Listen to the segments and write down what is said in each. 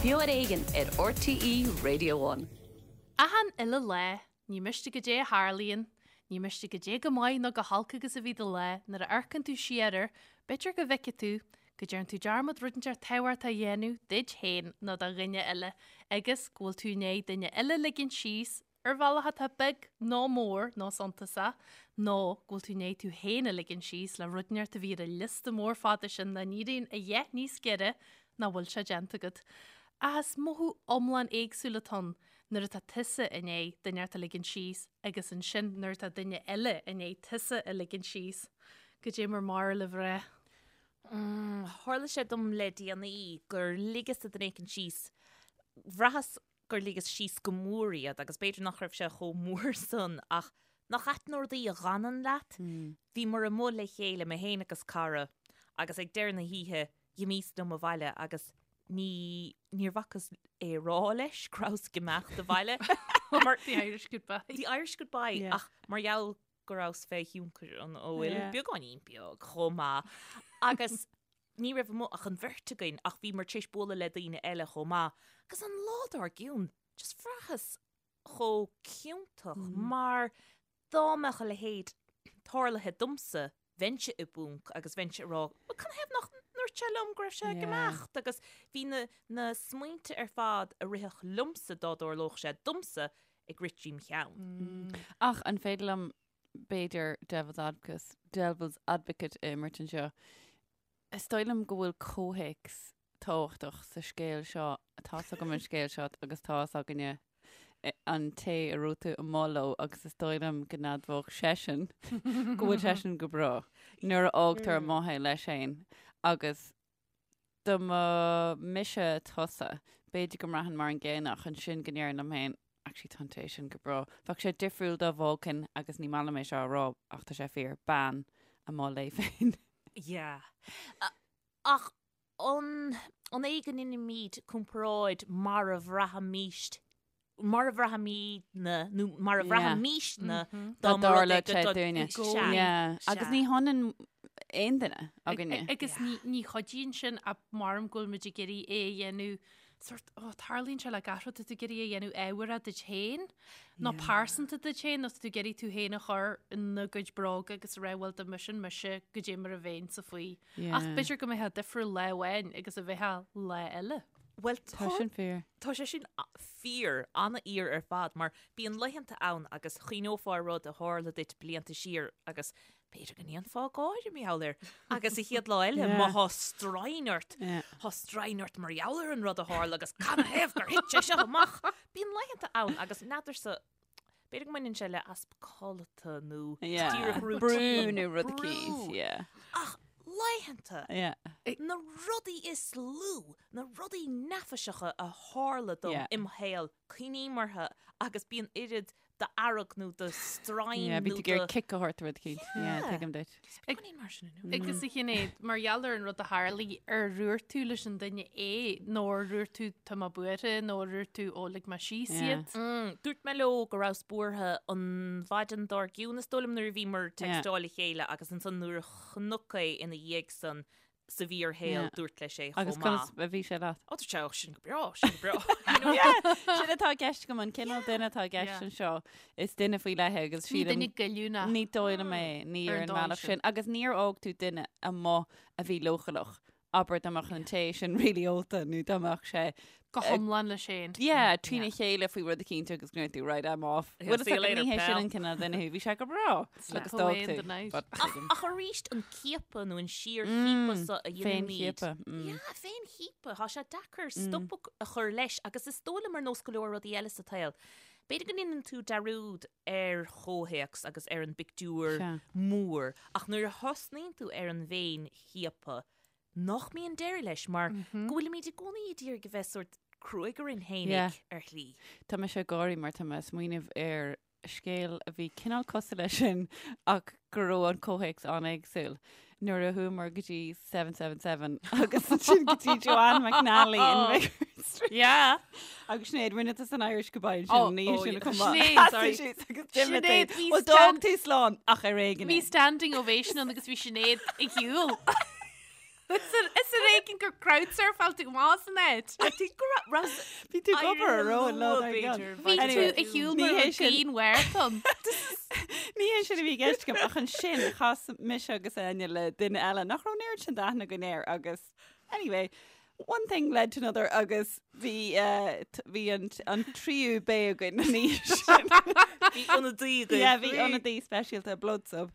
Beo ar Éigean ar RTÉ Radio One. Achan uile lá, ní miste goidé a tharlaíonn, ní miste goidé go maith nó go holc agus a bhí do lá, nuair a amharcann tú siar air, b'fhéidir go bhfeicfidh tú go dtearn tú dearmad rud inteacht tábhachtach a dhéanamh duit féin nó do dhuine eile agus go bhfuil tú i ndiaidh duine eile a ligint síos ar bhealach atá beag nó mór nó suntasach, nó go bhfuil tú i ndiaidh tú féin a ligean síos le rud inteacht a bhí ar an liosta mór fada sin nach n-éiríonn a dhath níos giorra nach bhfuil sé déanta agat. Ach is mothú iomlán éagsúil atá ann nuair atá tusa i ndiaidh duine inteacht a ligean síos agus ansin nuair atá duine eile i ndiaidh tusa a ligean síos. Goidé mar b'fhearr libh rá. Tharla sé dom le déanaí gur ligeas-sa duine éicint síos. Bhraitheas gur ligeas síos go mór iad agus b'fhéidir nach raibh sé chomh mór san ach nach ait na rudaí a dh'fhanann leat? Bhíomar amuigh le chéile, mé féin agus cara, agus ag deireadh na hoíche dh'imíos liom abhaile agus ní, níor bhacas é a rá leis go rabhas ag imeacht abhaile mar The Irish goodbye. The Irish goodbye Yeah. ach mar gheall go rabhas fé thionchar an óil, Yeah. beagáinín beag chomh maith agus Ní raibh amuigh ach an bheirt againn ach bhíomar tar éis bualadh le daoine eile chomh maith agus an lá dár gcionn just bhraitheas chomh ciontach mar dá mbeadh a leithéid tarlaithe domsa bheinnse i bponc agus bheinnse ag rá bhuel canathaobh nach ndúirt sé liom go raibh sé ag imeacht agus bhí na na smaointe ar fad a rithfeadh liomsa dá dtarlódh sé domsa ag rith tríom cheann. Ach an féidir liom b'fhéidir devil's advocate, devil's advocate a imirt anseo. Is dóigh liom go bhfuil comhthéacs tábhachtach sa scéal seo, tá's agam an scéal seo agus tá's againne an té a raibh tú amuigh leo agus is dóigh liom go n-admhódh seisean go bhfuil seisean go breá nuair a fhágtar amuigh é leis féin agus dá mba mise tusa, b'fhéidir go mbraithfinn mar an gcéanna ach ansin go ndéarfainn liom féin, actually tá an té sin go breá. Bheadh sé difriúil dá bhfágfainn, agus ní maith liom é seo a rá ach tá sé fíor, bean amuigh léi féin. Yeah. Ach an an é go ndeinimíd comparáid mar a bhraithimíst mar a bhraithimídne nó mar a bhraithimísne dá mba rud é go dúinne. Agus ní hionann aon duine againne. Agus ní chuidíonn sin ach maram go bhfuil muid ag iarraidh é a dhéanamh sort ó tarlaíonn sé le gach rud tá tú ag iarraidh é a dhéanamh ábhartha duit féin nó pearsanta duit féin nó tá tú ag iarraidh tú féin a chur ina gcuid bróga agus a rá bhuel dá mba sin mise goidé mar a bheinnse faoi. Ach b'fhéidir go mbeifeá difriúil lá amháin agus a bheifeá lá eile. Bhuel Tá sin fíor. Tá sé sin fíor, an-fhíor ar fad, mar bíonn laethanta ann agus chuimhneofá ar rud a tharla duit blianta siar agus b'fhéidir go ndéanfá gáire mar gheall air agus an chéad lá eile má thá stroighin ort, thá stroighin ort mar gheall ar an rud a tharla agus canathaobh gur thit sé seo amach. Bíonn laethanta ann agus n'fheadarsa, b'fhéidir go mbaineann sé le easpa codlata nó díreach routine. Brú nó rud eicínt, yeah. Ach laethanta, na rudaí is lú, na rudaí neafaiseacha a tharla dom im shaol, cuimhním orthu agus bíonn oiread d'fhearg nó de stroighin nó de... Bíonn tú ag iarraidh cic a thabhairt do rud eicínt. Yeah, tuigim duit. Beagáinín mar sin inniu. Agus a Shinéad, mar gheall ar an rud a tharlaigh, ar dhúirt tú leis an duine é nó ar dhúirt tú tá mé buartha nó ar dhúirt tú ó lig mé síos iad? Dúirt mé leo go rabhas buartha an mhaidin dár gcionn is dóigh liom nuair a bhíomar ag textáil le chéile agus ansan nuair a chonac é ina dhiaidh san sa bhfíorshaol dúirt leis é chomh Agus maith. conas a bhí sé leat? Ó dúirt sé, ó sin go breá, sin go breá. You know? Yeah, sin atá i gceist agam, an cineál duine atá i gceist Yeah. anseo, is duine faoi leith é agus Ní sílim duine goilliúnach. ní dóigh liom é, ní Ar ar an an dóigh mbealach sin. sin. Agus níor fhág tú duine amuigh a bhí leochaileach. Abair dá mbeadh an té sin really ólta nó dá mbeadh sé Go hiomlán leis féin. Yeah, trína chéile faoi rud eicínt agus go ndúirt tú, right, I'm off. Yeah, Bhuel, see you later, ní hé sin pal. an cineál duine thú, bhí sé go breá. Slip Agus away d'fhág in the tú. night. But Ach, ach arís an ciapadh nó an síorchiapadh so a dhéanaimid. Féinchiapadh. Mm. Yeah, féinchiapadh. Tá sé deacair stop a chur leis agus is dóigh liom ar nós go leor rudaí eile sa tsaol. B'fhéidir go ndéanann tú dearúd ar chomhthéacs agus ar an bpictiúr Sea. mór ach nuair a thosnaíonn tú ar an bhféinchiapadh nach mbíonn deireadh leis mar go bhfuilimid i gcónaí ag iarraidh a bheith sórt cruaidh orainn Yeah. fhéinig ar shlí. Tá mise ag gáirí mar tá mé ag smaoineamh ar scéal a bhí cineál cosúil leis sin ach go raibh an comhthéacs an-éagsúil. Nuair a chuamar go dtí 777 agus ansin go dtí Joanne McNally in Vicar Street. Yeah. Agus Sinéad, rinne tú an Irish goodbye Oh, ansin, ní oh, sin yeah. chomh maith. Sinéad, sorry. Sheasaigh sí agus d'imigh Sinéad, tú. bhí Well, stand- d'fhág tú slán ach ar éigean Bhí é. standing ovation ann agus bhí Sinéad ag shiúl. Is ar éigean gur crowdsurfáil tú amach as an áit. I think go raibh Bhí tú ag obair ar ró an lá dár gcionn. Bhí tú ar shiúl Ní mar hé raibh sin. grian mharathon. Ní hé sin a bhí i gceist agam ach ansin chas mise agus Áine le duine eile nach raibh an oiread sin d'aithne againn air agus anyway, one thing led to another agus bhí eh, t- bhí an t- an tríú bé againn an oíche sin. Bhí ionadaí agaibh. Yeah, bhí ionadaí speisialta blood sub.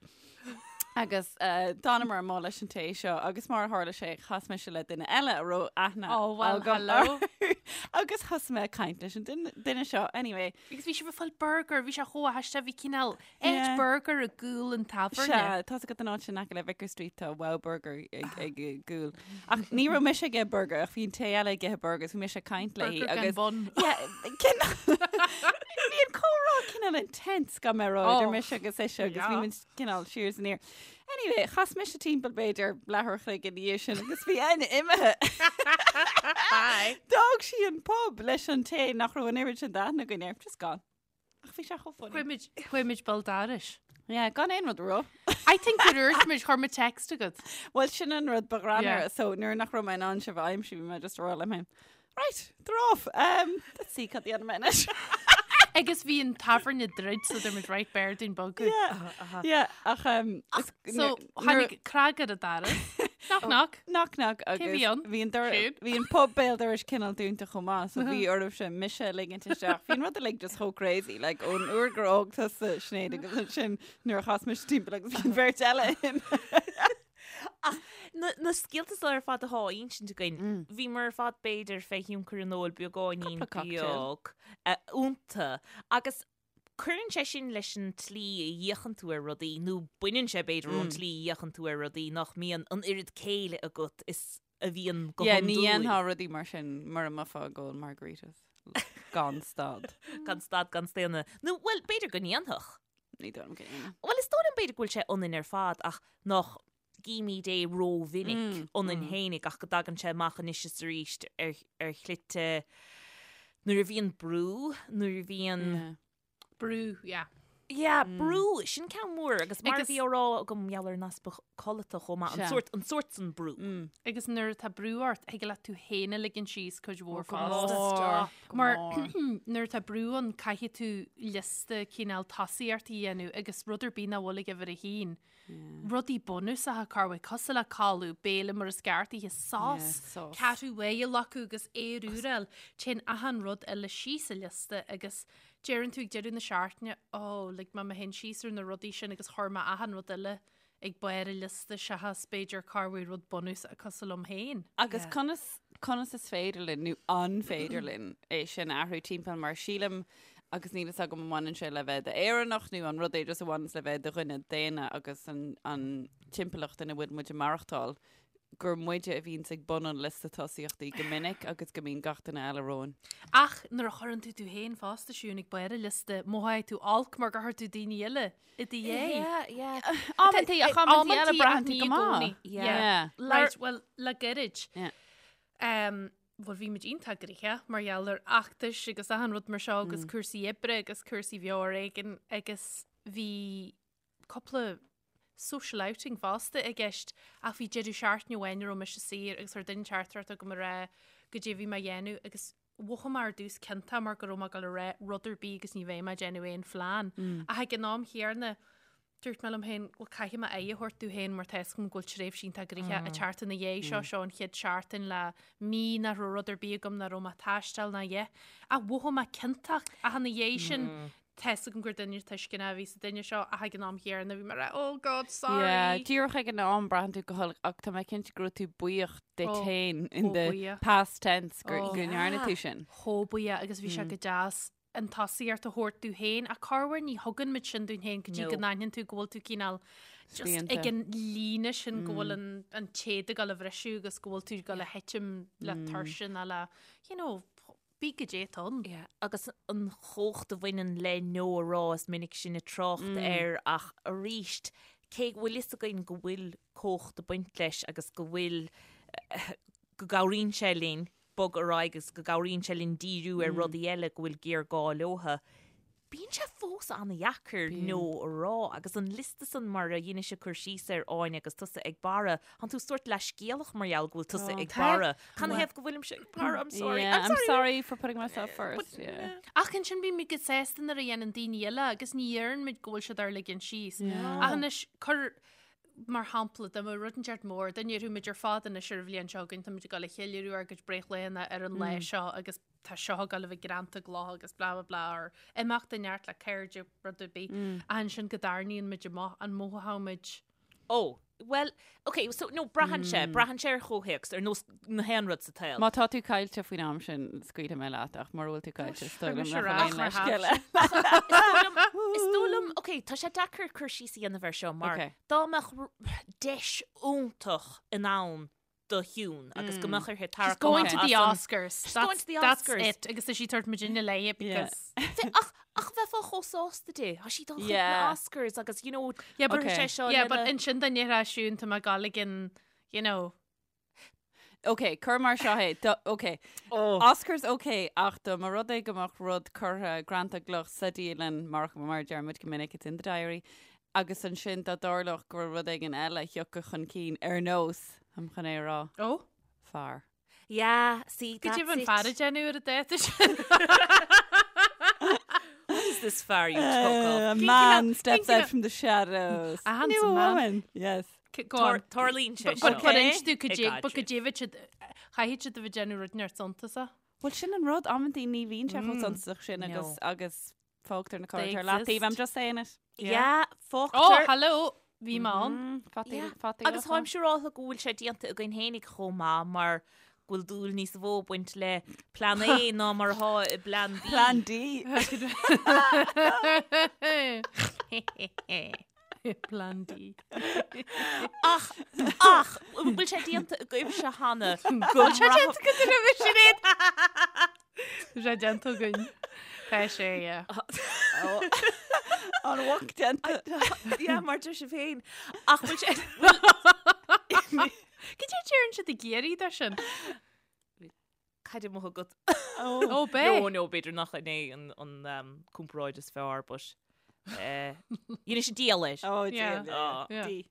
Agus eh, d'fhanamar amuigh leis an té seo agus mar a tharla sé chas mise le duine eile a raibh aithne Oh, well, agam hello. air. agus thosaigh mé ag caint leis an duine duine seo anyway. Agus bhí sibh ag fáil burger, bhí sé chomh haisteach, bhí cineál áit Yeah. burger i gcúl an tábhairne. Sea, tá agat an áit sin aice le Vicar Street tá Wow Burger ag ag gcúl. Ach ní raibh mise ag ithe burger ach bhí an té eile ag ithe burger, bhí mise ag caint léi Burger gan agus bun. Yeah, cineál- Bhí an comhrá cineál intense gan mé rá idir Oh, mise agus ise agus yeah. bhí muid cineál siar is aniar. Anyway, chas mise timpeall b'fhéidir leathuair a chloig ina dhiaidh sin agus bhí Áine imithe. Bye. D'fhág sí an pub leis an té nach raibh an oiread sin d'aithne againn air. Just gone. Ach bhí sé chomh funny. Chuaigh muid, chuaigh muid béal dorais. Yeah, gan aon rud a rá. I think gur dhúirt muid, chuir muid text chugat. Well, sin an rud ba ghreannmhaire. Yeah. So nuair nach raibh mé in ann sibh a aimsiú, bhí mé just ag rá liom féin, Right, they're off. Um, let's see cad a dhéanfaidh mé anois. Agus bhí an tábhairne druidte so dúirt muid right b'fhearr dúinn bogadh. Yeah, yeah, ach um, is- So nuair- tháinig cnag ar an doras. Knock knock. Knock knock agus bhí ann? bhí an dor- Siún? bhí an pub béal dorais cineál dúnta chomh maith, so bhí oraibhse mise a ligint isteach. Bhí an rud uilig just chomh crazy, like ón uair gur fhág tusa Sinéad agus ansin nuair a chas mise timpeall agus bhí an bheirt eile imithe. Ach na, na scéalta seo ar fad atá á insint againn, bhíomar ar fad b'fhéidir fé thionchar an óil beagáinín Cúpla cocktail. beag eh, iontu. Agus cuireann sé sin leis an tslí a fhéachann tú ar rudaí, nó baineann sé b'fhéidir ón tslí a fhéachann tú ar rudaí nach mbíonn an oiread céille agat is a bhíonn go Yeah, ní hiondúil. dhéanfá rudaí mar sin mura mbeifeá ag ól margaritas. Gan stad. Gan stad gan staonadh. Nó, bhuel, b'fhéidir go ndéanfadh. Ní dóigh liom go ndéanfadh. Bhuel, is dóigh liom b'fhéidir go bhfuil sé ionainn ar fad ach nach gcímid é rómhinic ionainn fhéinig ach go dtagann sé amach anois is arís ar, ar shlite nuair a bhíonn brú, nuair a bhíonn... Yeah. Brú, yeah. Yeah, brú, sin ceann mór agus mar a Agus- bhí á rá agam mar gheall ar an easpa codlata chomh maith, an Sea. sórt, an sórt san brú. Agus nuair atá brú ort, thig leat tú féin a ligean síos cuid mhór Go fosta. mór, go Mar mór. nuair atá brú ann caithfidh tú liosta cineál tosaíochtaí a dhéanamh agus rud ar bith nach bhfuil ag uimhir a haon. Rudaí bunúsacha corruair cosúil le codladh, béile mar is ceart a ithe, sos, Yeah, sos. ceathrú uaidh a ghlacadh agus aer úr a fháil. Téann achan rud eile síos an liosta agus deireann tú ag deireadh na seachtaine, oh, lig mé mé féin síos ar na rudaí sin agus chuir mé achan rud eile ag barr an liosta seachas b'fhéidir corruair rud bunúsach cosúil liom féin. Agus conas, conas is féidir linn, nó an féidir linn, é sin a athrú timpeall mar sílim, agus níl fhios agam an mbaineann sé le bheith d'Éireannach nó an rud é just a bhaineanns le bheith de dhuine daonna agus an, an timpeallacht ina bhfuil muid ag maireachtáil, gur muide a bhíonns ag bun an liosta tosaíochtaí go minic agus go mbíonn gach duine eile romhainn. Ach nuair a chuireann tú tú féin fosta, Siún, ag barr an liosta, mothaíonn tú olc mar gur chuir tú daoine eile i do dhiaidh. Yeah, yeah. Amantaí, ach amantaí eile braitheann tú go maith. Yeah. Yeah. Right, well, le gairid. Yeah. Um, bhuel, bhí muid iontach gnoitheach mar gheall ar fheachtais agus achan rud mar seo agus cúrsaí oibre agus cúrsaí bheo ar éigean agus bhí cúpla social outing fosta i gceist ach bhí deireadh seachtaine amháin a raibh mise saor agus chuir duine teachtaireacht chugam ag rá goidé a bhí mé a dhéanamh agus mhothaigh mé ar dtús ciontach mar go raibh mé ag dul a rá rud ar bith agus ní bheidh mé ag déanamh aon phlean. Ach ag an am chéanna dúirt mé liom féin bhuel caithfidh mé aghaidh a thabhairt domh féin mar tá fhios agam go bhfuil tréimhse iontach gnoitheach ag teacht ina dhiaidh seo, seo an chéad seachtain le mí nach raibh rud ar bith agam nach raibh mé ag taisteal ná a dhath. Ach mhothaigh mé ciontach ach ina dhiaidh sin Tá fhios agam gur duine tuisceanach a bhí sa duine seo ach ag an am chéanna bhí mé ag rá oh God sorry. Yeah, díreach ag an am braitheann tú go holc ach tá mé cinnte go raibh tú buíoch duit Oh, féin in chomh the buíoch. past tense gur Oh. go ndearna tú sin. Chomh buíoch agus bhí sé go deas an tosaíocht a thabhairt dúinn féin ach corruair ní thugann muid sin dúinn féin go dtí No. go n-aithníonn tú go bhfuil tú cineál just Spíonta. ag an líne sin go bhfuil an, an téad ag dul a bhriseadh agus go bhfuil tú ag dul a thitim le tuirse nó le you know, Bí goidé atá ann. Yeah, agus an chumhacht a bhaineann le no a rá is minic sinn ag trácht air ach arís, cé go bhfuil fhios againn go bhfuil cumhacht ag baint leis agus go bhfuil, go gcabhraíonn sé linn bogadh ar aghaidh agus go gcabhraíonn sé linn díriú ar rudaí eile go bhfuil géarghá leotha. Bíonn sé fós an-dheacair no a rá agus an liosta san mar a dheinis-se cur síos air Áine agus tusa ag Barra, thánn tú sórt leithscéalach mar gheall go bhfuil tusa ag Barra. Canathaobh go bhfuilimse ag Barra? I'm sorry. Yeah, I'm sorry for putting myself first. Yeah. Ach ansin bímid go sásta nuair a dhéanann daoine eile agus ní dheireann muid go bhfuil siad ár ligean síos. Ach anois cuir mar shampla dá mbeadh rud inteacht mór, dá ndéarfadh muid ar fad anois ar an bhliain seo chugainn, táimid ag dul a cheiliúradh ár gcuid breithlaethanta ar an lá seo agus tá seo ag dul a bheith greanta i gcloch agus blah blah blah or imeacht inteacht le cairde rud ar bith. Ach ansin go dtarraingíonn muid amach an mothódh muid Ó, bhuel, ok, so, no, braitheann sé, braitheann sé ar chomhthéacs, ar nós na haon rud sa tsaol. Má tá tú caillte faoin am sin, scaoilfidh mé leat, ach mura bhfuil tú caillte, is dóigh liom mise nach ar bhfuil ais aon mar leithscéal thaibhse. Is dóigh liom, ok, tá sé deacair cur síos a dhéanamh air seo mar Ok. dá mbeadh r- deis iontach in ann do Shiún agus go mbeadh uirthi She's tarrac going amach to the as an- Oscars. She's going That's, to the that's Oscars. it. Agus tá sí ag tabhairt muidinne léi because... Bhe- Ach, ach bheifeá chomh sásta di. Tá sí dul chuig na Yeah. Oscars agus, you know, Yeah, but, cuirfidh sé seo yeah, but lena- ansin dá ndéarfadh Siún tá mé ag gabháil ag an, you know, Ok, cuir mar seo é. Do, ok. Oh. Oscars ok, ach dá mba rud é go mbeadh rud curtha greanta i gcloch sa dialann mar mar a deir muid go minic, it's in the diary, agus ansin dá dtarlódh go raibh rud éigin eile a thiocfadh chun cinn ar nós, táim chun é a rá, oh, fear. Yeah, see, Cad that's é an it. fear ag déanamh ar an dáta sin? What is this fear you talk of? A man steps thinking out of- from the shadows. A New handsome man. woman. Yes. Go on. Tarlaíonn sé But seo. but inis tú I cad é- but gcaidreamh. cad é bheadh siad chaithfidh siad a bheith ag déanamh rud inteacht suntasach. Well, sin an rud, amantaí ní bhíonn sé chomh suntasach sin agus No. agus fágtar na They cairde ar leataobh. I'm exist. just saying it. Yeah, Oh, fágtar. hello, bhí mé ann. Fataí, Yeah. fataí Agus táim siúráltha go bhfuil sé déanta againn fhéinig chomh maith mar go bhfuil dúil níos mó ag baint le plean A ná mar atá i bplean B. Plan D. Plan D. Ach, ach, bhfuil sé déanta agaibhse cheana go Bhfuil sé déanta agat roimhe Sinéad? Tá sé déanta againn. Tá sé, yeah. An bhfuil déanta. Yeah, mar deir sibh féin. Ach bhfuil sé... Cad é deireann siad i gCiarraí de sin? Cad é mo agat? Ó, b'é. No, no, b'fhéidir nach in é an, an um, comparáid is fearr, but eh, dhein sé díol air. Oh, Yeah. dear. Ah. Yeah. D.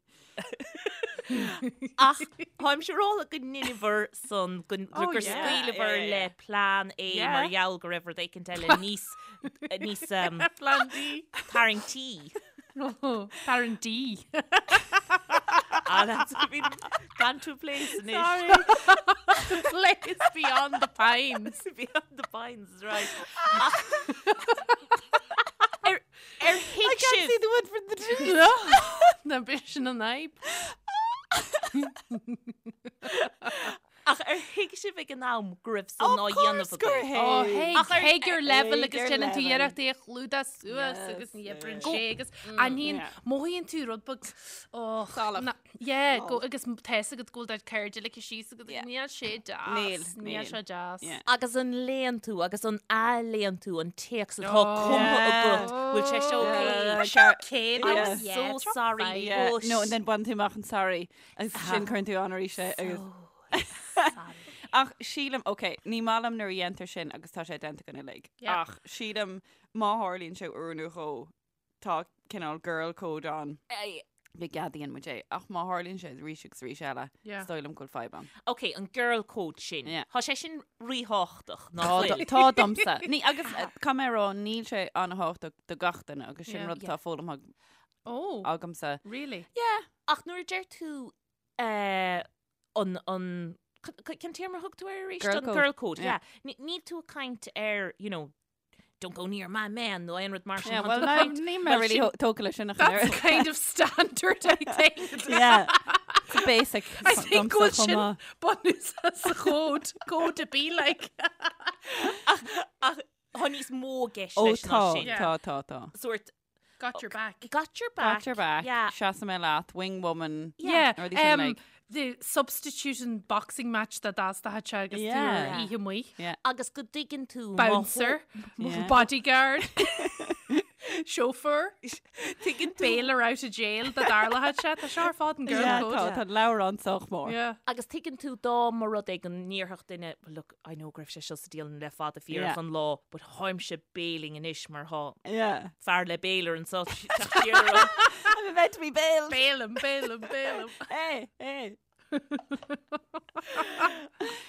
Ach táim siúráltha go ndeineabhair san go Oh, gur yeah. scaoileabhair Yeah, yeah, le yeah. plean A Yeah. mar gheall go raibh rud éicint eile níos níos um, Plan D. tarraingtí. Oh, Tarraingtí. Ah, that's been gone to a place anois. Sorry. The place beyond the pines. Beyond the pines, right. Ach, ar, ar I thuig can't sibh see the wood for the trees. Na b'é sin an fhadhb. Ach ar thuig sibh ag an am go raibh san á dhéanamh gur agaibh? Ó, thuig. thuig, thuig your level agus Thuig your déanann tú level. iarracht é a chlúdach suas Yes, agus ní oibríonn yeah. sé agus aithníonn, Yeah. mothaíonn tú rud beag, oh, Salach. na- yeah, go, agus tá fhios agat go bhfuil do chairde ligthe síos agat, Yeah. níl sé deas, Níl, níl níl. sé deas. Yeah. Agus an léann tú agus an athléann tú an téacs atá Oh. cumtha Yeah. agat, bhfuil sé seo Yeah. okay? Sure. Okay, I'm Yeah. so sorry, Yeah. but No, and then baineann tú amach an sorry agus sin cuireann tú an arís é agus Sorry. Ach sílim, ok, ní maith liom nuair a dhéantar sin agus tá sé déanta againn uilig. Yeah. Ach sílim má tharlaíonn sé uair nó dhó tá cineál girl code ann go gceadaíonn muid é. Ach má tharlaíonn sé arís agus arís eile, Yeah. is dóigh liom go bhfuil fadhb ann. Ok, an girl code sin. Yeah. Tá sé sin ríthábhachtach, nach Tá bhfuil? tá domsa. Ní agus eh, caithfidh mé a rá níl sé an-thábhachtach do gach duine agus sin Yeah. rud atá foghlamtha Oh, agamsa. really? Yeah. Ach nuair a deir tú eh, an, an, cén téarma a thug tú air arís? Girl An code. Girl code, Yeah. yeah. Níl tú ag caint ar, you know, don't go near my man nó aon rud mar sin. Yeah, Tá well, tú ag no, caint- níl mé well, really sin- tógtha leis sin a That's chun kind of standard, I think. Yeah. It's a basic. I think go bhfuil domsa chomh sin maith. bunús sa chód, code to be like. Ach, ach, tá níos mó i gceist Ó leis ná tá, sin. Yeah. tá, tá, tá. Sort Got your back. got your back. Got your back. Yeah. Seasfaidh mé leat, wing woman. Yeah, Rudaí sin like. the substitution boxing match that that's the hatch agus Yeah. tú oíche amuigh. Yeah. Agus go dtuigeann tú má Bouncer, Yeah. bodyguard. Chauffeur. Tuigeann tú. Bailer out of jail dá dtarlódh sé. Tá seo ar fad an girl Yeah, code. tá, tá an leabhrán sách mór. Yeah. Agus tuigeann tú dá mba rud é go ndéarfadh duine, well look, I know go raibh sé seo sa dialann le fada fíorach Yeah. an lá, but tháimse bailing anois mar thá Yeah. fear le bailer anso teacht siar orm. I'm about to be bailed. Bailim, bailim, bailim. Hey, hey.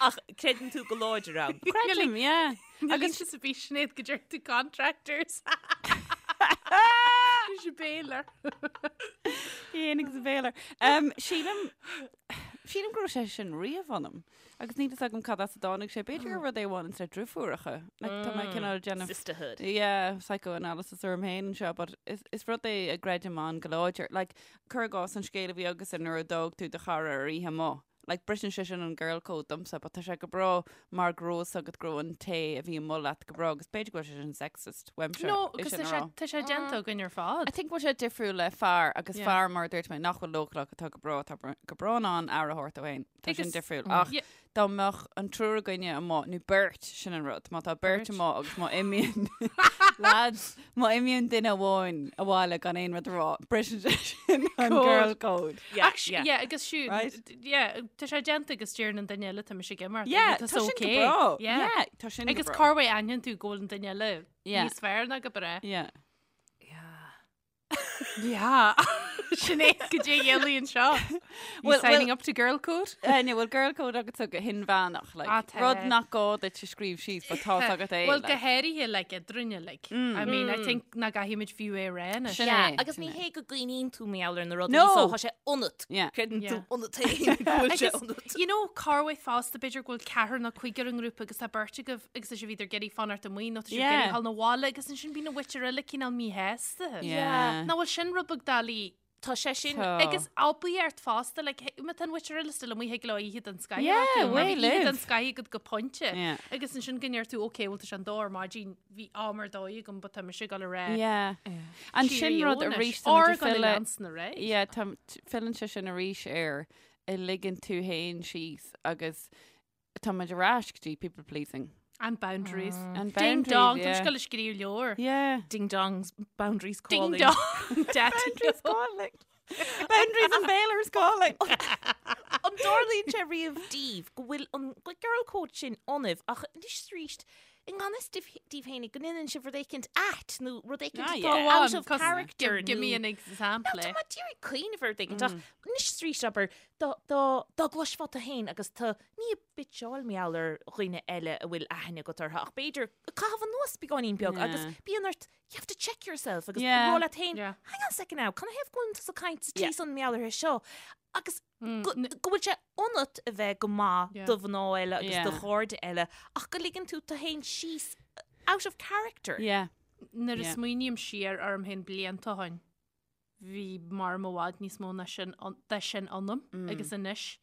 Ach creideann tú go láidir ann. Creidim, yeah. Agus is a bhí Sinéad go deir tú contractors. Is a bailer. Féin agus a bailer. Um, sílim sílim go raibh sé sin riamh ionam. Agus níl fhios agam cad as a dtáinig sé. B'fhéidir gur rud é a bhaineann le driofúracha. Like, tá mé cineál ag déanamh Sisterhood. Yeah, psychoanalysis orm féin anseo, but is, is rud é a gcreidim ann go láidir. Like, Cuir i gcás an scéal a bhí agatsa nuair a d'fhág tú do chara ar oíche amuigh. Like, briseann sé sin an girl code domsa, but tá sé go breá mar go raibh fhios agat go raibh an té a bhí amuigh leat go breá agus b'fhéidir go bhfuil sé sin sexist uaimse No, é agus sin tá a sé rá. tá sé déanta againn ar fad. I think bhfuil sé difriúil le fear agus Yeah. fear mar a dúirt mé nach bhfuil leochaileach atá go breá atá go breá in ann aire a thabhairt dó féin. Tá sin Agus- difriúil. Ach Yeah. dá mbeadh an triúr againne amuigh, nó beirt, sin an rud, má tá beirt Beirt. amuigh agus má imíonn lads, má imíonn duine amháin abhaile gan aon rud a rá, briseann sé sin an Code. girl code. Yeah, Ach, yeah. yeah, agus siúd, Right? yeah, tá sé déanta agus deireann an duine eile tá mise ag imeacht. Yeah, tá tá sin go okay. breá. Yeah. Yeah, tá sin go Agus breá. cá bhfuil aithníonn tú go bhfuil an duine eile Yeah. níos fearr ná go breá. Yeah. Yeah. Sinéad goidé dhéalaíonn seo. Well, Well, signing up to girl code? Eh, ní bhfuil girl code agat go hinmheánach, like, Ah, tá. rud nach gá duit a scríobh síos, but tá agat é. Well, go like. háirithe like eadrainne, like. I mean, I think nach gcaithfimid fiú é rá anois. Sin Yeah, é, agus sin ní é. hé go gcuimhníonn tú mar gheall ar na rudaí No. so tá sé ionat. Yeah. Creideann tú Yeah. ionat féin go bhfuil sé Agus, ionat. you know, corruair fosta b'fhéidir go bhfuil ceathrar nó cúigear i ngrúpa agus tá beirt agaibh agus tá sibh either ag iarraidh fanacht amuigh nó tá sibh Yeah. ag iarraidh dhul 'na bhaile agus ansin bíonn an mhuintir eile cineál míshásta. Yeah. Nach bhfuil sin rud beag doiligh Tá sé sin Tá. Agus oibríocht fosta, like, má tá an mhuintir eile still amuigh thig leo oíche den scoth a Yeah, bheith acu, mar way bhí oíche den live. scoth agat go pointe. Yeah. Agus ansin go ndeir tú, ok, bhuel tá sé an dó ar maidin, bhí am ar dóigh agam, but tá mise ag dul ar aghaidh. Yeah. An sin Cheerio rud anois. arís tá Or muid ag gul i filleadh- leansan ar aghaidh. Yeah, tá filleann sé sin arís ar a ligeann tú féin síos agus tá muid ar ais go dtí people pleasing. And boundaries. And Ding boundaries, dong, yeah. Tá mise ag scríobh leabhar. Yeah. Ding dongs, boundaries Ding calling. dong, daddy Boundaries calling. Boundaries and bailers calling. An dtarlaíonn sé riamh daoibh go bhfuil an girl code sin ionaibh ach anois arís i ngan fhios daoibh féinig go ndéanann sibh rud éicint ait nó rud éicint Ah, atá yeah. Go out on, of 'cause character Give, give me nó- an example. Tá mé d'iarraidh cuimhneamh ar rud éicint ach anois arís abair dá dá dá gcloisfeá tú féin agus tú ní ag bitseáil mar gheall ar dhaoine eile a bhfuil aithne agat orthu ach b'fhéidir ag caitheamh anuas beagáinín beag agus Yeah. bíonn ort you have to check yourself agus Yeah. rá leat féin Yeah. hang on a second now can I have going to caint sa Yeah. tí san mar gheall uirthi seo agus Mm, go go bhfuil sé ionat a bheith go maith Yeah. do mhná eile agus do Yeah. chairde eile ach go ligeann tú tú féin síos out of character. Yeah. Nuair a Yeah. smaoiním siar orm féin blianta ó shin, bhí mar i bhfad níos mó ná sin de sin ionam agus anois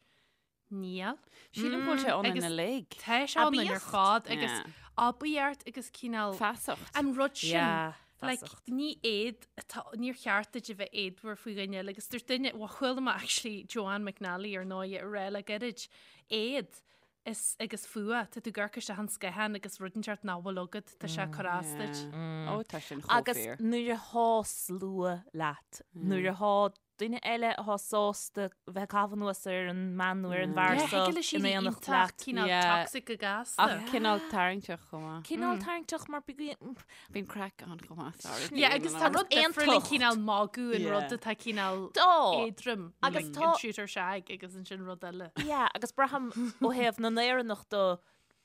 níl. Sílim go bhfuil sé ionainn Agus uilig. Tá sé ionainn ar Aibíocht. fad agus Yeah. aibíocht agus cineál Feasacht. an rud sin. Yeah, Like, feasacht. ní éad atá- níor cheart duit a bheith éadmhar faoi dhuine eile agus dúirt duine, bhuel, chuala mé actually Joanne McNally ar ndóigh a rá le gairid, éad is agus fuath, tá tú ag amharc isteach an sciathán agus rud inteacht nach bhfuil agat, tá sé ag cur as duit. Yeah. Ó, tá sin chomh Agus fíor. nuair atá slua leat, nuair atá duine eile atá sásta bheith ag caitheamh anuas ar an mbean nó ar an bhfear Yeah, seo thig le in siad éineacht iontach leat. cineál Yeah. toxic go gasta. Ach cineál tarraingteach chomh maith. Cineál tarraingteach mar bíonn Bíonn craic ann chomh maith, sorry. Yeah, agus tá rud difriúil an aontacht. cineál magadh an Yeah. rud atá cineál Dá. éadrom Agus like, tá- an shoot or shag agus ansin rud eile. Yeah, agus braithim ó thaobh na nÉireannach de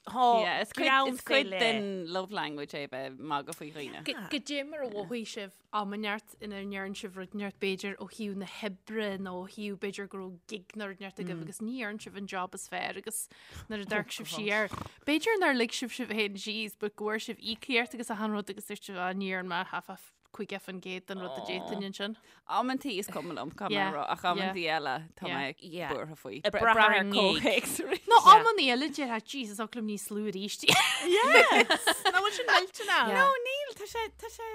thá Yeah, is cuid, greann is cuid fé leith. den love language é bheith magadh faoi dhaoine. Goidé mar a mhothaigh sibh am inteacht ina ndearn sibh rud inteacht b'fhéidir ó thaobh na hoibre nó ó thaobh b'fhéidir go raibh gig nó rud inteacht agaibh agus ní dhearn sibh an job is fearr agus nuair a d'amharc sibh siar. B'fhéidir nár lig sibh sibh féin síos but go bhfuair sibh íocaíocht agus achan rud agus dúirt sibh "Ah, ní dhearn mé half a 50% den rud a d'fhéadfainn ansin. Amantaí is cuma liom caithfidh mé Yeah, a rá, ach amantaí eile tá Yeah. mé Yeah. buartha faoi. Ag brath ar an ngig. comhthéacs arís. Nó Yeah. amannaí eile déarfá Jesus oth liom níos lú arís. Yes! Nach bhfuil sin millteanach? No, níl, tá sé, tá sé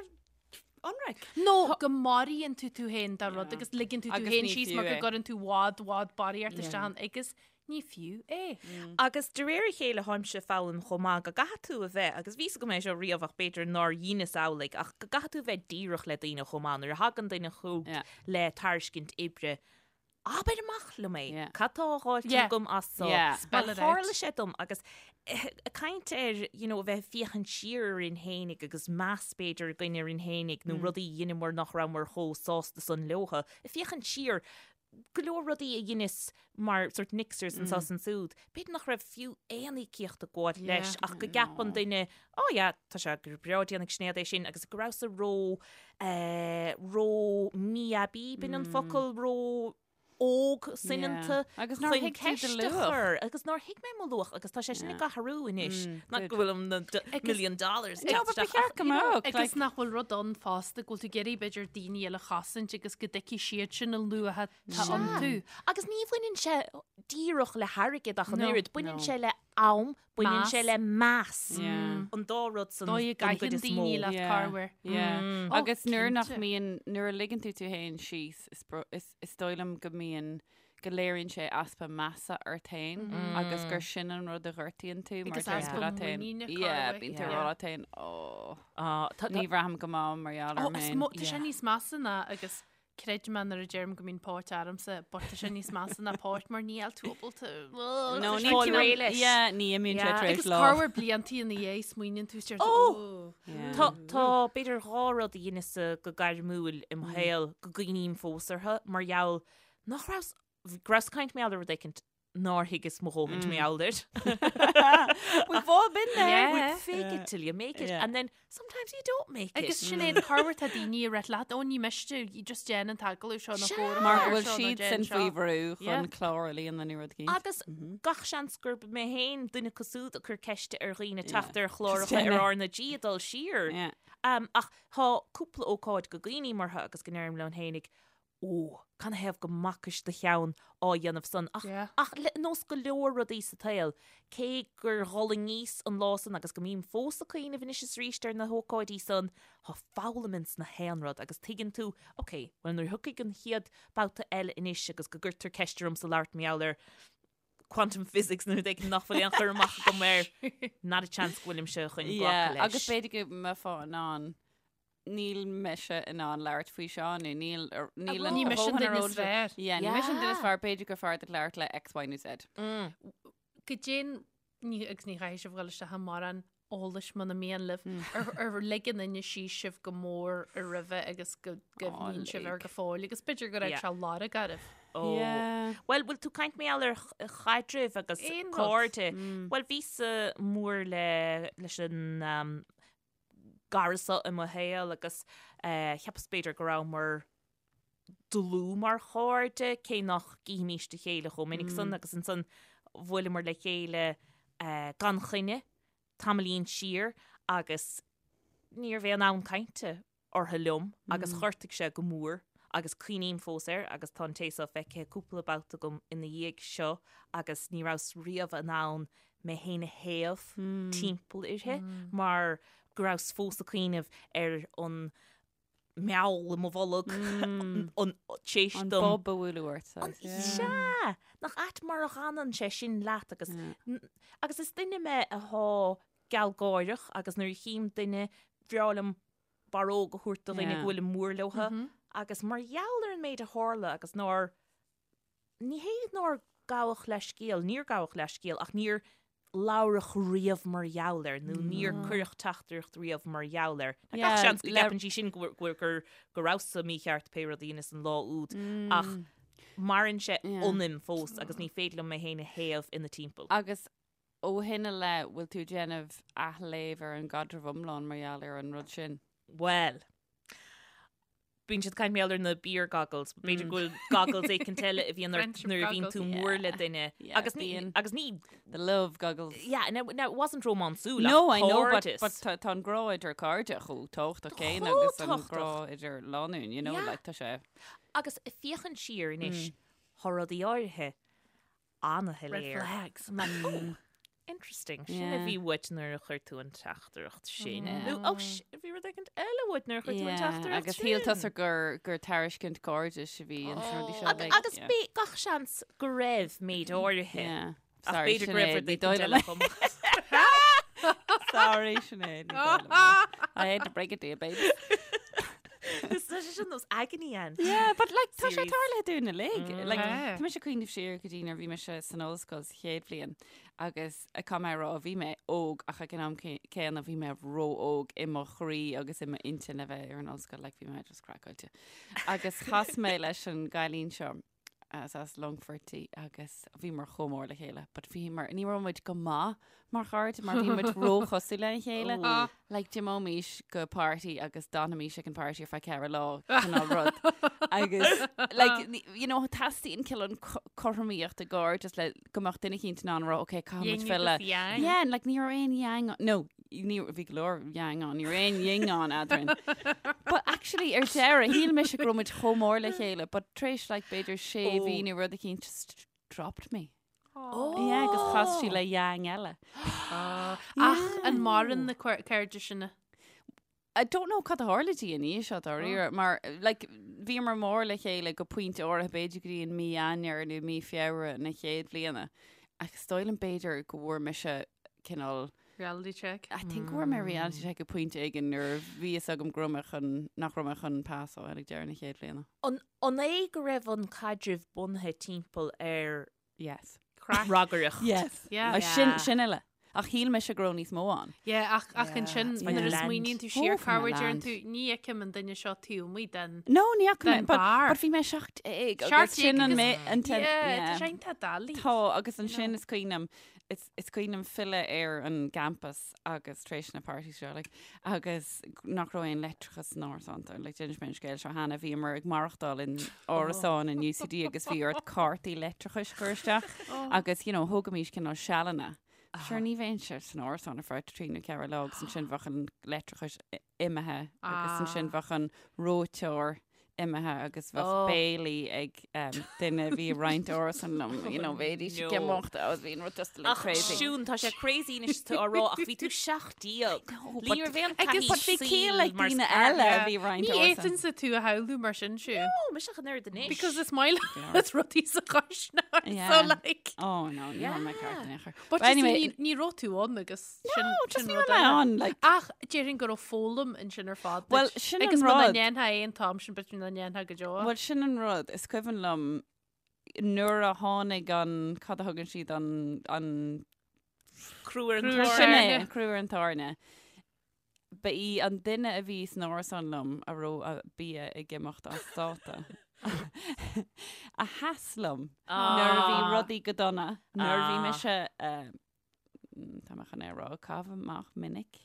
ionraic. Nó go maraíonn tú tú féin dá rud agus ligeann tú tú Agus féin ní síos fiú mar go é. gcuireann tú i bhfad i bhfad barraíocht isteach ann agus Ní fiú é. Agus de réir a chéile tháimse ag foghlaim chomh maith go gcaithfidh tú a bheith, agus bhí 'fhios agam é seo riamh ach b'fhéidir nár dheineas amhlaidh, ach go gcaithfidh tú a bheith díreach le daoine chomh maith. Nuair a thagann duine chugat le tairiscint oibre, abair amach liom é. Cad tá á dh'fháilt agam as so? Mar tharla sé dom agus ag caint ar you know a bheith ag féachaint siar orainn fhéinig agus meas b'fhéidir againn orainn fhéinig nó rudaí a dheineamar nach rabhamar chomh sásta san leotha. Ag féachaint siar, go leor rudaí a dheineas mar sort mixers anso is ansúd, b'fhéidir nach raibh fiú aon íocaíocht ag gabháil leis ach go gceapann duine, oh yeah, tá sé go breá déanfaidh Sinéad é sin agus go rabhas-sa ró, eh, ró mí-aibí, b'in an focal, ró óg soineanta Agus nár chun thuig tú do ceist a luach. chur agus nár thuig mé mo luach agus tá sé sin ag athrú anois. Not go bhfuil na million dollars No, but ba cheart go mbeadh, Agus like- nach bhfuil rud ann fosta go bhfuil tú ag iarraidh b'fhéidir daoine eile a chosaint agus go dtuigfidh siad sin a luach atá iontu. Agus ní bhaineann sé díreach le hairgead ach an No. oiread, baineann No. sé le am, baineann Meas. sé le meas. Yeah. An dá rud san Dóigh a don gcuid gcaitheann is mó. daoine leat Yeah. corruair. Yeah. Oh, Agus nuair nach cinnte. mbíonn, nuair a ligeann tú tú féin síos, is bro- is is dóigh liom go mbíonn go léiríonn sé easpa measa ort féin agus gur sin an rud a ghortaíonn tú mar Agus deir tú easpa leat féin. muiníne Yeah, corruair. bíonn tú ag Yeah. rá leat féin, "Ó, Ah, tá- ní bhraithim go maith mar gheall Ó, orm is féin." mo- tá sé Yeah. níos measa ná agus creid mé nuair a deirim go mbíonn póit ormsa, but tá sé níos measa ná póit mar níl tú ábalta. No, Tá ní sé fáil tú- réidh leis. Yeah, ní imíonn sé Yeah. tar éis Agus lá. corruair bliantaí ina dhiaidh smaoiníonn tú is deir tú, Ó! "Ó." Yeah. Tá, tá, b'fhéidir dhá rud a dheineas-sa go gairmiúil i mo shaol go gcuimhním fós orthu mar gheall nach rabhas, go rabhas ag caint mar gheall ar rud éicint nár thuigeas mo dhóthaint mar gheall air. We've all been there. Yeah. We fake it till you make it Yeah. and then sometimes you don't make it. Agus Sinéad, corruair tá daoine ag rá leat, ó ní miste, you just déan an t-agallamh seo nó Sea. cóir Mar go seo bhfuil nó siad déan sin seo. faoi bhrú Yeah. chun clár a líonadh nó rud éicint. Agus gach seans gurb mé féin duine acu siúd a chuir ceiste ar dhaoine teacht ar Just chláracha déan ar é. R na G ag dul siar. Yeah. Um, ach tá cúpla ócáid go gcuimhním orthu agus go ndeirim liom féinig, Ó, canathaobh go mbacais do cheann á dhéanamh san? Ach, Yeah. ach le nós go leor rudaí sa tsaol, cé gur dh'fhulaingíos an lá san agus go mbím fós ag cuimhneamh anois is arís ar na hócáidí san, tá foghlaim ins na haon rud agus tuigeann tú, ok, bhuel nuair a thiocfaidh an chéad babhta eile anois agus go gcuirtear ceist ormsa labhairt mar gheall ar quantum physics nó rud éigin nach bhfuil aon chur amach agam air, not a chance go bhfuilimse chun glacadh Yeah, leis. agus b'fhéidir go mbeifeá in ann níl mise in ann labhairt faoi seo nó níl níl Ní mise an duine is fearr. Yeah, ní mise an duine is Yeah. fearr b'fhéidir gur fearr duit labhairt le X, Y nó Z. Goidé ní agus ní chaithfidh sibh dhul isteach i mórán eolais muna mian libh ar ar lig an duine síos sibh go mór i roimhe agus go gcuimhníonn sibh air lig. go fóill agus b'fhéidir go raibh Yeah. sé lorg oraibh. Ó. Yeah. Bhuel, bhfuil tú ag caint mar gheall ar ch- chaidrimh agus Aon rud. cairde. Bhuel, bhíos-sa mór le leis an um, gcara seo i mo shaol agus cheapas b'fhéidir go rabhamar dlúth mar chairde, cé nach gcífimís a chéile chomh minic san agus ansan bhuaileamar le chéile gan choinne tamaillín siar agus ní raibh aon fhonn cainte orthu liom agus ghortaigh sé go mór agus cuimhním fós air agus tá an té seo feicthe cúpla babhta agam ina dhiaidh seo agus ní rabhas riamh in ann mé féin a théamh timpeall uirthi mar go rabhas fós ag cuimhneamh ar an meall i mo bholg an tséis An dom. bob a bhualadh ort. saghas, yeah. Sea! Nach ait mar a dh'fhanann sé sin leat agus agus is duine mé athá gealgháireach agus nuair a chím duine bhreá liom barróg a thabhairt do dhuine go bhfuilim mór leotha agus mar gheall ar an méid a tharla agus nár, ní hé nár gabhadh leithscéal, níor gabhadh leithscéal ach níor labhradh riamh mar gheall air nó níor cuireadh teachtaireacht riamh mar gheall air. Tá gach seans go gceapann sí sin go go go rabhas-sa mícheart pé rud a dheineas an lá úd ach maireann sé ionam fós agus ní féidir liom mé féin a théamh ina timpeall. Agus Ó shin i leith, bhfuil tú ag déanamh athléamh ar an gcaidreamh iomlán mar gheall ar an rud sin? Bhuel, bíonn siad ag caint mar gheall ar na beer goggles, b'fhéidir go bhfuil goggles éicint eile a bhíonn ort nuair a bhíonn tú mór le duine. Agus ní, agus ní. The love goggles. Yeah, now, now it wasn't rómánsúil ach No, I know, but, cairdeas. but tá, tá an grá idir cairde chomh tábhachtach céanna agus an tábhachtach. grá idir lánúin, you know, Yeah. like tá sé. Agus ag féachaint siar anois, tá rudaí áirithe an-shoiléir. Red flags. I'm like, oh, Interesting. Sin a bhí uait nuair a chuir tú an teachtaireacht sin. Nó ó bhí rud éigin eile uait nuair a chuir tú an teachtaireacht Agus shíl tusa gur gur tairiscint cairdis a bhí ins na rudaí seo. Like, Agus b'é gach seans go raibh méid áirithe. Ach b'fhéidir go raibh rud éigin eile chomh maith. Sorry, Sinéad. ní dóigh liom é. I had to break it to you, babe. Is tá sé sin nós agony aunt. Yeah, but like tá sé Series. tarlaithe dúinn uilig. Like, Yeah. tá mise ag cuimhneamh siar go dtí nuair a bhí mise san ollscoil sa chéad bhliain agus caithfidh mé a rá bhí mé óg ach ag an am céanna bhí mé ró-óg i mo chroí agus i m'intinn le bheith ar an ollscoil, like bhí mé just craiceáilte. Agus chas mé leis an gcailín seo as as Longfort í agus bhíomar chomh mór le chéile, but bhíomar, ní raibh muid go maith mar chairde mar bhí muid róchosúil lena chéile. Ah. Like d'imeoimis go party agus d'fhanfaimis ag an party ar feadh ceithre lá cineál rud. Agus like, you know, teastaíonn cineál cothromaíocht i gcairdeas le go mbeadh duine eicínt in ann a rá, okay, caithfidh muid Yin filleadh. agus yang. Yeah, and like ní raibh aon yang, no, ní bhí go leor yang ann, ní raibh aon yin ann eadrainn. But actually ar deireadh, shíl mise go raibh muid chomh mór le chéile, but tar éis like b'fhéidir sé Oh. mhí nó rud eicínt just dropped me. Oh. Yeah, agus chas sí le yang eile. Ach an maireann na cairde sin? I don't know cad a tharla di ina dhiaidh seo dáiríre, mar like bhíomar mór le chéile go pointe áirithe b'fhéidir go dtí an mí Eanáir nó mí Feabhra na chéad bhliana. Ach is dóigh liom b'fhéidir go bhfuair mise cineál Reality check. I think go bhfuair mé reality check ag pointe éigin nuair a bhí fhios agam go raibh mé chun nach raibh mé chun pas a fháil ag deireadh na chéad bhliana. An an é go raibh an caidreamh bunaithe timpeall ar Yes. Craic. ragaireacht? Yes. Yeah. Ah, sin sin uile. Ach shíl mise go raibh níos mó ann. Yeah, ach ach ansin It's my nuair a land. smaoiníonn tú siar Oh, for cá my bhfuair deireann land. tú ní fheicim an duine seo taobh amuigh den No, ní fhaca mé, Den but, bar. but bhí mé 17 agus sin an agus- mé an ten, Yeah, tá yeah. sé iontach doiligh. Tá agus ansin is cuimhin liom is is cuimhin liom filleadh ar an gcampas agus tar éis na parties seo like, agus nach raibh aon leictreachas san árasán tá like, d'inis mé an scéal seo cheana bhíomar ag maireachtáil in árasán in UCD agus bhí ort cártaí leictreachais a chur isteach agus you know, thógaimis cineál sealanna. Sure ní bheinnse san árasán ar feadh trí nó ceithre lá agus ansin bheadh an leictreachas imithe agus ansin bheadh an reoiteoir imithe agus bheadh Oh. béilí ag um, duine a bhí ag roinnt árasán liom, you know, bheidís ag No. imeacht agus bhí an rud just like Ach crazy. Siún, tá sé crazy anois tú á rá ach bhí tú 17. No, Ní raibh aon Agus taithí but bhí ciall ag saoil mar daoine scar- eile a bhí ag roinnt Ní árasán. fhéadfainnse tú a shamhlú mar sin Siún. Ó, mise an oiread anois. Because is maith leat rudaí sa chuisneoir, so Yeah. like. Oh no, ní raibh mé ceart in aon chor. But But you see, anyway, ní ní raibh tú ann agus sin no, just sin ní rud raibh mé eile. ann, like, Ach déarfainn go raibh foghlaim ansin ar fad Well, duit. sin an Agus muna rud. ndéanfá é an t-am sin b'fhéidir nach ndéanfá go deo. Well, sin an rud, is cuimhin liom nuair a tháinig an, cad a thugann siad an, an Crú ar an Crú ar Sin tairne. é, an crú ar an tairne. Ba í an duine a bhí san árasán liom a raibh a bia ag imeacht as dáta. A sheas liom nuair a bhí Ah. rudaí go dona, nuair a bhí Ah. mise, eh, tá mé chun é a rá, caitheamh amach minic.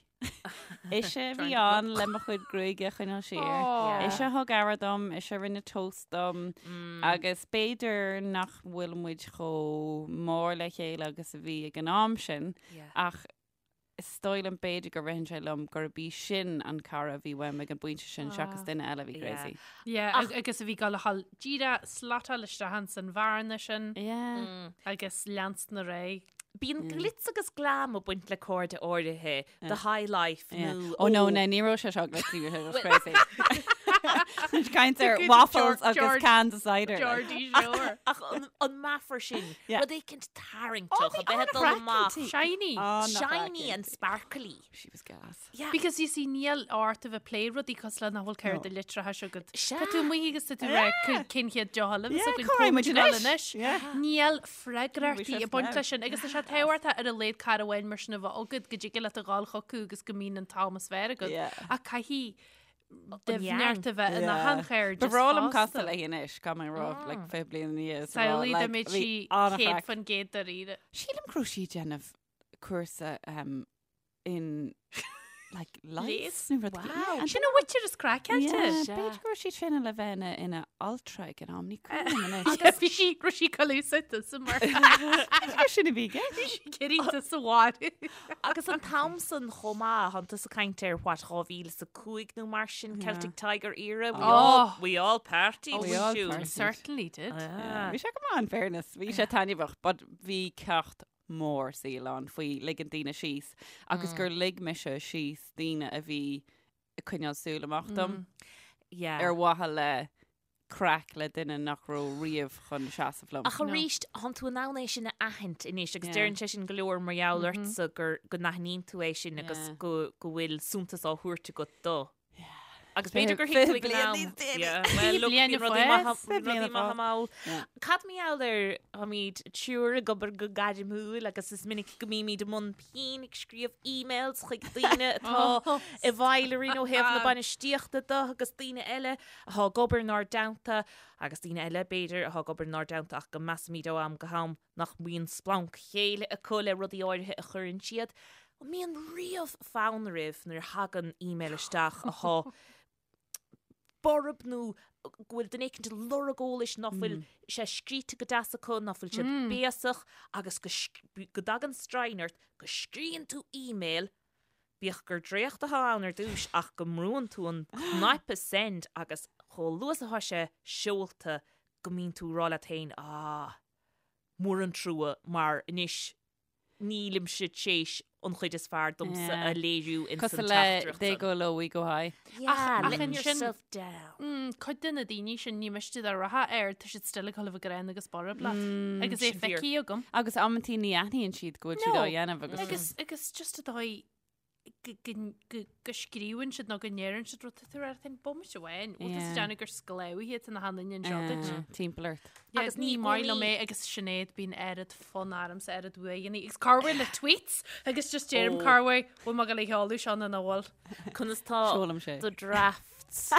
Ise a bhí ann le mo chuid gruaige a choinneáil siar. Aw. Ise a thug aire dom, ise a rinne toast dom, agus b'fhéidir nach bhfuil muid chomh mór le chéile agus a bhí ag an am sin, ach is dóigh liom b'fhéidir go ritheann sé liom gurb í sin an cara a bhí uaim ag an bpointe sin seachas duine eile a bhí crazy. Yeah, agus a bhí ag gabháil díreach slotáil isteach ins an bhearna sin Yeah. agus leanstan ar aghaidh. Bíonn glitz agus glam ag baint le cairde áirithe, the high life nó Oh no, no, ní raibh sé seo glitzy, bhí sé just crazy. Caint ar Good waffles George- agus George- cans of cider. like. Geordie Shore. Ach an, an meafar sin, Yeah. rud éicint tarraingteach a bheith ag dul amach. an-chraiceann Shiny. Shiny and sparkly. She was gas. Yeah. Because you see níl ort a bheith ag plé rudaí cosúil le nach bhfuil ceirde litreacha agat. Sea. Tá tú amuigh agus tá tú ag rá cén chéad deoch eile Yeah, a bheas againn cá raibh muid comh anois? anois. Yeah. Níl freagrachtaí Bhí sé ag baint snow. leis sin agus tá sé tábhachtach ar a laghad cara amháin mar sin a bheith agat go dtig leat a ghabháil chucu agus go mbíonn an t-am is fearr agat. Yeah. Ach caithfidh yang. doimhneacht a bheith ina Yeah. hanchairdeas Ba bhreá liom fosta. casadh léi anois, caithfidh mé a rá, like, 20 bliain ina dhiaidh is a rá, Samhlaigh dá like, mbeadh bhí sí an-chraic. 100% dáiríre. Sílim go raibh sí ag déanamh cúrsa um, in like Leigheas? leigheas nó rud éigin. Wow. Sin an mhuintir is craiceáilte. Yeah, Sea. B'fhéidir go raibh sí ag traenáil le bheith ina, ina altra ag an am, ní cuimhin liom anois. Agus bhí sí raibh sí colusa sa mar B'fhéidir sin a bhí i gceist. cinnte sa bháire. Agus an t-am san chomh maith, tánn tusa ag caint ar what 2005 nó mar sin, Celtic Tiger era, we Oh. all, we all partied We with all you. partied. Certainly did. Ah. Bhí sé go maith in fairness, bhí sé taitneamhach, but bhí ceacht mór saoil ann faoi ligean daoine síos agus gur lig mise síos daoine a bhí ag coinneáil súil amach dom Yeah. ar mhaithe le craic le duine nach raibh riamh chun seasamh liom. Ach arís, thánn tú in ann é sin a aithint anois agus Yeah. deireann sé sin go leor mar gheall ortsa gur go n-aithníonn tú é sin agus Yeah. go go bhfuil suntas á thabhairt agat dó. Agus b'fhéidir gur thuig tú ag an am. Yeah, well, look, bliain bíonn a rudaí fás. maith Fiche bliain rudaí a maith fás. amall. Yeah. Cad mar gheall ar táimid triúr ag obair go gairmiúil agus is minic go mbímid i mbun pinn ag scríobh emails chuig daoine atá i bhfeighil orainn ó thaobh na bainistíochta de agus daoine eile atá ag obair inár dteannta agus daoine eile, b'fhéidir, atá ag obair inár dteannta ach go measaimid ó am go ham nach mbíonn splanc céille acu le rudaí áirithe a chuireann siad. An mbíonn riamh fonn oraibh nuair a thagann email isteach atá borb nó go bhfuil duine éicint ag lorg eolais ná fuil sé scríte go deas acu, ná fuil siad béasach agus go go dtagann stroighinn ort, go scríonn tú email, bíodh gur dréacht atá ann ar dtús ach go mbrúann tú an cnaipe send agus chomh luath is atá sé seolta go mbíonn tú ag rá leat féin, ah, mór an trua mar anois nílimse tréis an chuid is fearr domsa a léiriú ins an Cosúil le teachtaireacht they san. go low, we go high. Yeah, Ach letting ansin- yourself down. Mm, cuid de na daoine sin ní miste dá rachfá air, tá siad still ag dul a bheith gránna agus borb leat. Agus é sin fíor. feicthe agam. Agus amantaí ní aithníonn siad go bhfuil siad No. á dhéanamh agus Agus agus just an dóigh go go go go scríobhann siad nó go ndeireann siad rud tá tú ar an bomaite amháin. Bhfuil tú Yeah. ag déanamh gur sclábhaithe iad na hanainn anseo duit. eh, timpeall ort. Yeah, Agus ní ní maith liom gcónaí- é agus Sinéad bíonn oiread fonn ormsa oiread uaigheanna agus corruair le tweets agus just deirim Oh. corruair bhfuil mé ag dul a sheoladh seo nó nach bhfuil. Conas tá Seolaim sé. do drafts?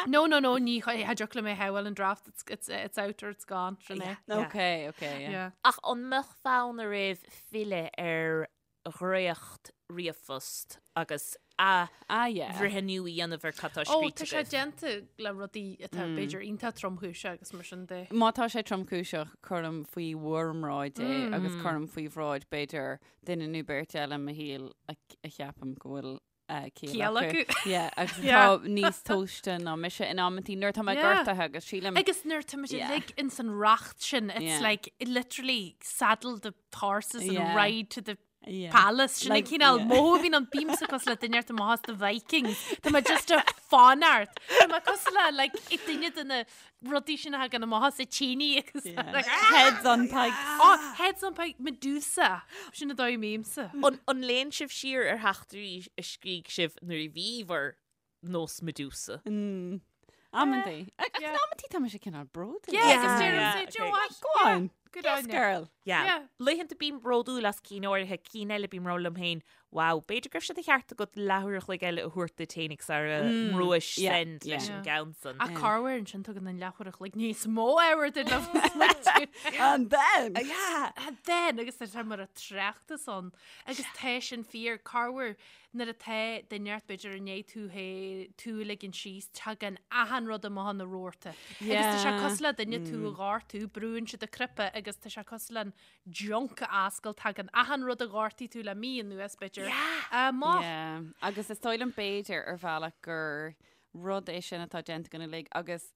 No, no, no, ní cha dtiocfadh liom é a shamhail an draft, it's, it's, it's out or it's gone, sin é. Yeah. Okay, okay, yeah. Yeah. Ach an mbeadh fonn oraibh filleadh ar dhréacht ríomhphost agus athbhreithniú a dhéanamh ar cad tá Ó, scríte tá sé agaibh. déanta le rudaí atá b'fhéidir iontach tromchúiseach agus mar sin de. Má tá sé tromchúiseach, cuirim faoi bhur mbráid é agus cuirim faoi bhráid b'fhéidir duine nó beirt eile i mo shaol a a cheapaim go bhfuil eh, ciall Ciall acu. acu. Yeah, agus Yeah. atá níos tomhaiste ná mise in amantaí nuair atá mé Yeah. gortaithe agus sílim Agus nuair tá muid Yeah. uilig ins an racht sin, it's Yeah. like literally saddle the horses and Yeah. ride to the Yeah. palace. Sin an Like, cineál yeah. mothú a bhíonn ann bímse cosúil le duine inteacht amach as the Vikings. Tá mé just ag fanacht. Tá mé cosúil le like i duine de na rudaí sin a thagann amach as a tíní agus Yeah. like, Heads on pikes. Oh, heads on pike, Medusa. Sin an dóigh a mbímse. An an léann sibh siar ar theachtairí a scrígh sibh nuair a bhí bhur nós Medusa? Mm. Amantaí. Ach Yeah. in amantaí tá mise cineál bródúil. Yeah, Yeah. agus deirim Yeah, say, do you know okay. what? Go on. Good Yes, on you. girl. Yeah. Yeah. Laethanta bím bródúil as cinn áirithe, cinn eile bím ag rá liom féin, wow, b'fhéidir go raibh sé de cheart agat leathuair a chloig eile a thabhairt duit féinig sara mbrúis yeah, send leis yeah. an gceann san. Ach corruair ansin tugann an leathuair a chloig níos mó ábhair duit le smaointiú. And then. Yeah. And then, agus tá sé mar a tráchtas ann, agus tá sin fíor, corruair nuair atá duine inteacht b'fhéidir i ndiaidh tú hé tú a ligean síos, tagann achan rud amach ina rabharta. Agus tá sé Yeah. cosúil le duine tú a ghortú, brúann siad an cnaipe agus tá sé cosúil le an junk a oscailt, tagann achan rud a ghortaigh tú le mí anuas b'fhéidir amach. Yeah. Agus is dóigh liom b'fhéidir ar bhealach gur rud é sin atá déanta againn uilig agus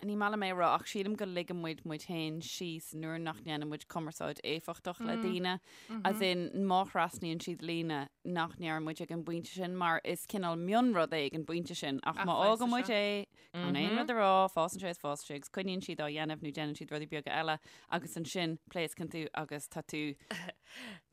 ní maith liom é a rá ach sílim go ligeann muid muid féin síos nuair nach ndéanann muid cumarsáid éifeachtach le daoine, as in má thrasnaíonn siad líne nach ndeireann muid ag an bpointe sin mar is cineál mionrud é ag an bpointe sin ach Ach má fásann fhágann muid sé. é gan aon rud a rá, fásann sé is fásann sé agus coinníonn siad á dhéanamh nó déanann siad rudaí beaga eile agus ansin pléascann tú agus tá tú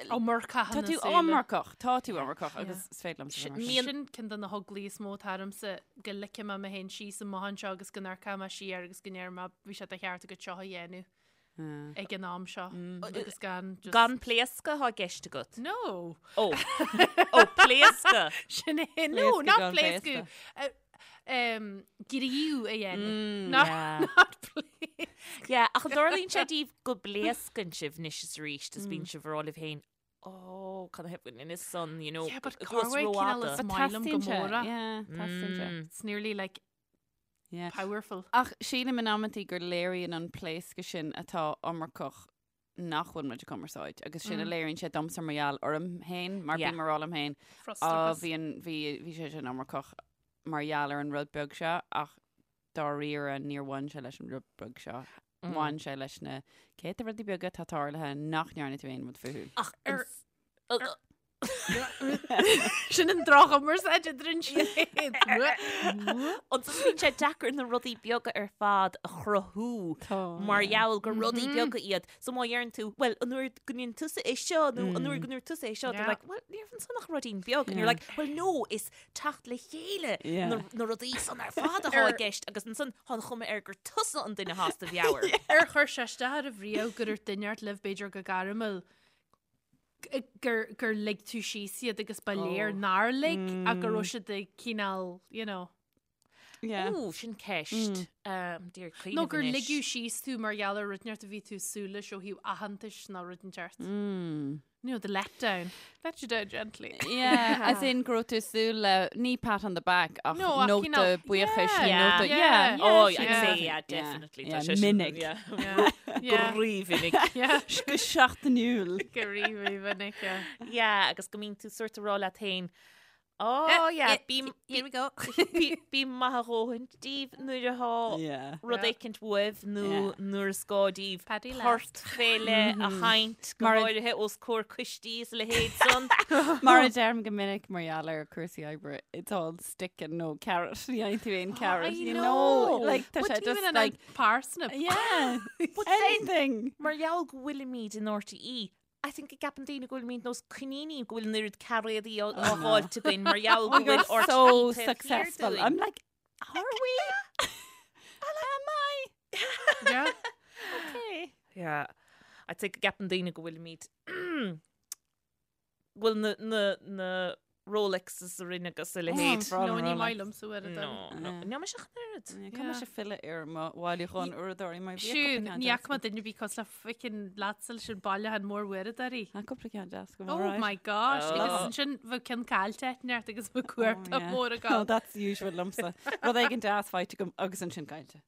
Iomarcach Tá ina tú súile. iomarcach, tá tú iomarcach agus is féidir liomsa bheith mar sin. Sin ceann de na heaglaí is mó atá ormsa go ligfidh mé mé féin síos amach anseo agus go n-amharcfaidh mé siar agus go ndéarfaidh mé bhí sé de cheart agat seo a dhéanamh ag an am seo agus gan just Gan pléascadh atá i gceist agat? No. Ó. Ó, pléascadh. Sin é. No, Pléascadh not gan pléascadh. pléascadh. Gníomh a dhéanamh. Not Yeah. not pléascadh. Yeah, ach an dtarlaíonn sé daoibh go bpléascann sibh anois is arís is bíonn sibh ag rá libh féin, oh, cad a theip in is son, you know, Yeah, but go bhfuil corruair cineál rófhada. is maith liom go Teastaíonn sé, mór é. yeah, teastaíonn sé. It's nearly like Yeah. powerful. Ach sílim in amantaí gur léiríonn an pléascadh sin atá iomarcach nach bhfuil muid ag cumarsáid agus sin a léiríonn sé domsa mar gheall orm féin mar Yeah. bím ag rá liom féin á Frustrachas. bhí an bhí bhí sé sin iomarcach mar gheall ar an rud beag seo ach dáiríre níor bhain sé leis an rud beag seo. Bhain sé leis na céadta rudaí beaga atá tarlaithe nach ndearna tú aon rud fúthu. Ach ar Sin an droch-chumarsáid idir an siad. Ansan bíonn sé deacair na rudaí beaga ar fad a chruthú mar gheall gur rudaí beaga iad. So má dheireann tú, well, an uair go ndéanann tusa é seo nó an uair go ndúirt tusa é seo, they're like, well, ní raibh ansan ach ruidín beag. And you're like, well, no, is teacht le chéile na rudaí san ar fad atá i gceist agus ansan tá an chuma air gur tusa an duine atá as do mheabhair. Ar chuir sé isteach oraibh riamh gur dhúirt duine inteacht libh b'fhéidir go gairmiúil gur, gur lig tú síos iad agus ba léir nár lig ach go raibh siad ag cineál, you know. Yeah. Ó, sin ceist. D'iarraidh cuimhneamh Nó gur anois. ligeadh síos tú mar gheall ar rud inteacht a bhí tú ag súil leis ó thaobh aitheantais nó rud inteacht. You know, the letdown. Let you down gently. Yeah, as in go raibh tú ag súil le ní pat on the back ach No, ach nóta cineál- buíochais Yeah, nó yeah, nóta yeah. yeah, Oh, yeah, I'd yeah. say, yeah, Yeah, definitely. yeah, Tá sé sin- minic. yeah. Yeah. Yeah. Go rímhinic. Yeah. Go seachtainiúil. Go rímhinic, yeah. Yeah, agus go mbíonn tú sort ag rá leat féin, Oh, yeah, bí Here we go. bí maith a dhóthain daoibh nuair atá Yeah. rud Yeah. éicint uaibh nó Yeah. nuair is gá daoibh Paddy port fé leith a sheinnt go Mar a- háirithe os comhair coistí is a leithéid san. Mar a deirim go minic mar gheall ar cúrsaí oibre, it's all stick and no carrot. Ní fhaigheann tú aon carrot, I you know. know. Like, tá But sé even just an like, parsnip. yeah, But then- anything. Mar gheall go bhfuilimid in RTÉ, I think go gceapann daoine go bhfuilimid nós coiníní go bhfuil an oiread cairéadaí á fháilt againn mar gheall go We're bhfuil so RTÉ taobh thiar successful. dúinn. I'm like, are we? Am I? Yeah. Okay. Yeah. I'd say go gceapann daoine go bhfuilimid go bhfuil na, na, na Rolexes orainn agus a leithéid. Bra No, ní Rolex. maith liomsa uair a No, dom. no. Yeah. Níl mise ach an oiread. Yeah, Caithfidh mise filleadh ar mo bhailiúchán uaireadóirí mar bhí Siún, cúpla ceann ní deas fhaca mé duine ar bith cosúil le fucking leatsa leis an bailiúchán mór uaireadóirí. agam. Tá cúpla ceann deas agam, Oh alright. my gosh, Oh. agus ansin bheadh ceann caillte ag neart agus bheadh Oh, cuarta yeah. mór Oh, agam. that's usual liomsa. Rud éigin deas faighte agam agus ansin caillte.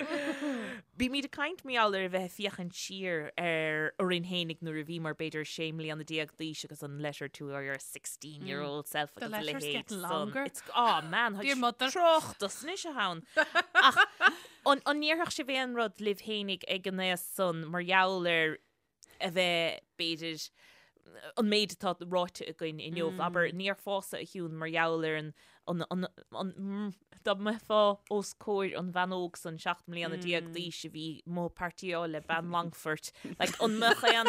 Bímid ag caint mar gheall ar a bheith ag féachaint siar ar orainn fhéinig nuair a bhíomar b'fhéidir sé mbliana déag d'aois agus an letter to your 16 year old self The agus a letter's leithéid getting san. longer. It's, oh man, Dear mother. Tráchtas anois atá ann. Ach an an ndéarfadh sibh aon rud libh fhéinig ag an aois san mar gheall ar a bheith b'fhéidir an méid atá ráite againn inniu, abair, ní déarfása a Shiún mar gheall ar an, an, an, an, mm, dá mbeifeá os comhair an bhean óg san 17 mbliana d'aois a bhí amuigh ag partyáil le bean Longfoirt, like, an mbeadh aon,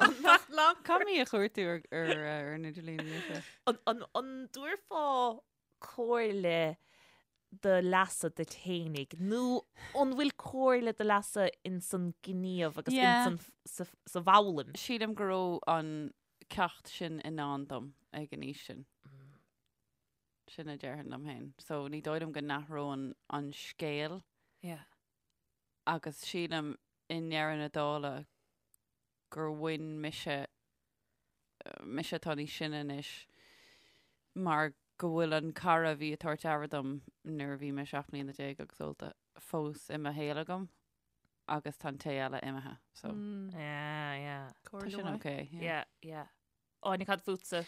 an mbeadh, Caithfidh mé a chuartú ar, ar, ar an idirlíon anois. an, an, an dtabharfá comhairle do leasa duit fhéinig nó an bhfuil comhairle do leasa ins an gníomh agus Yeah. ins an, sa, sa bhfoghlaim? Sílim go raibh an ceacht sin i ndán dom ag an aois sin. Sin a déarfainn liom féin. So ní dóigh liom go n-athróinn an scéal Yeah. agus sílim i ndeireadh na dála gur bhain mise, mise atá níos sine anois, mar go bhfuil an cara a bhí ag tabhairt aire dom nuair a bhí mé 17 mbliana agus ólta fós i mo shaol agam agus tá an té eile imithe. So Mm, Yeah, yeah. tá sin ok. Yeah. Yeah, yeah. Áine, cad fútsa?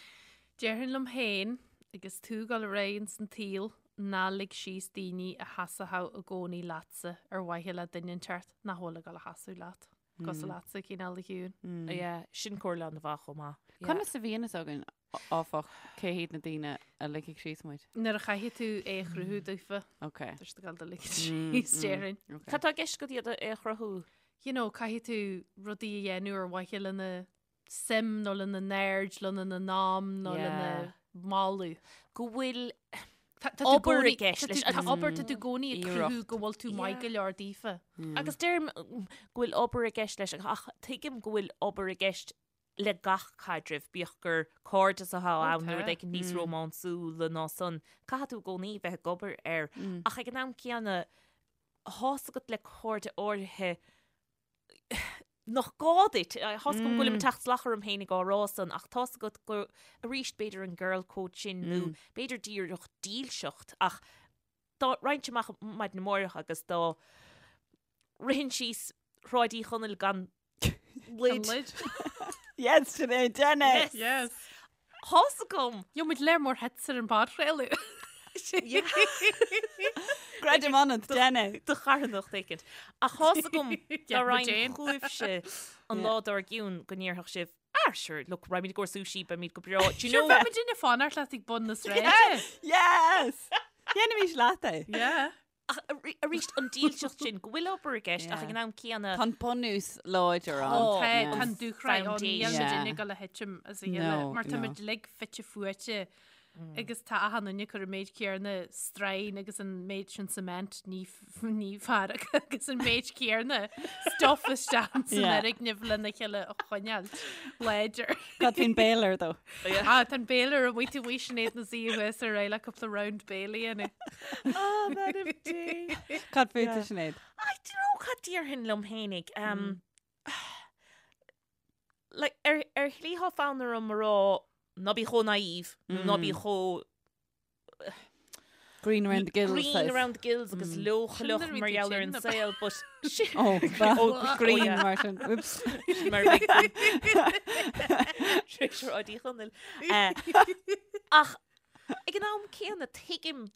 Déarfainn liom féin, agus tú ag dul ar aghaidh ins an tsaol, ná lig síos daoine a sheasódh i gcónaí leatsa ar mhaithe le duine inteacht nach bhfuil ag dul a sheasamh leat. Cosúil leatsa, cineál a Shiúin. Yeah, sin comhairle an-mhaith chomh maith. Yeah. Conas a bhíonn fhios againn, áfach, cé hiad na daoine a ligfidh síos muid? Nuair a chaithfidh tú é a chruthú daofa, Ok. tá siad ag dul do ligean síos, déarfainn. Ok. Cad tá i gceist agat iad a é a chruthú? You know, caithfidh tú rudaí a dhéanamh ar mhaithe lena suim nó lena n-aird, lena n-am nó lena moladh. Go bhfuil obair i gceist leis. Tá obair tá tú i gcónaí ag Iarracht. cruthú go bhfuil tú maith go leor daofa. Agus deirim go bhfuil obair i gceist leis ach tuigim go bhfuil obair i gceist le gach caidreamh, bíodh gur cairdeas atá ann nó rud éicint níos rómánsúla ná san. Caithfidh tú i gcónaí bheith ag obair air. Ach ag an am céanna, tá's agat le cairde áirithe nach gá duit. Tá's agam go bhfuilim ag teacht salach orm féin ag á rá san, ach tá's agat go, arís, b'fhéidir an girl code sin nó b'fhéidir díreach dílseacht, ach dá raghainn amach maidin amárach agus dá rithinn síos Shráid Uí Chonaill gan lid. Lid. Yes, Sinéad, déan é! Yes. Tá's agam! Gheobhaimid léar mór hits ar an bpodchraoladh. Creidim ionat, déan é. Do charthanacht éicint. Ach tá's agam dá raghainn chugaibhse an lá dár gcionn go ndéarfadh sibh, ah sure, look, raghaimid i gcomhair sushi, beimid go breá. Do you Sure, know? bheadh muid ag fanacht leat ag bun na sráide. Yes! Dhéanfaimis leat é. Yeah. Ach arís an dílseacht sin, go bhfuil obair i gceist ach ag an am céanna. Tá an bunús láidir ann. Tá, tá an dúshraith ann, níl muid ag dul a thitim as a chéile mar tá muid uilig fite fuaite agus tá achan duine ag cur an méid céanna strain agus an méid sin cement ní ní fearr agus an méid céanna stuff isteach san fhoirgneamh lena chéile a choinneáil láidir. Cad faoin baler though? Ah, tá an baler amuigh taobh amuigh Sinéad ina suí thuas ar aghaidh le cúpla round bale a dhéanamh. Ah, man of Dé. Cad fút a Sinéad? I don't know cad déarfainn liom fhéinig. Um, like, ar, ar shlí tá fonn orm a rá ná bí chomh naive, nó ná bí chomh Green around the gills. Green around the gills agus leochaileach mar gheall ar an saol, but Oh, oh, green mar sin. Oops. Mar Uí Chonaill. Ach ag an am céanna tuigim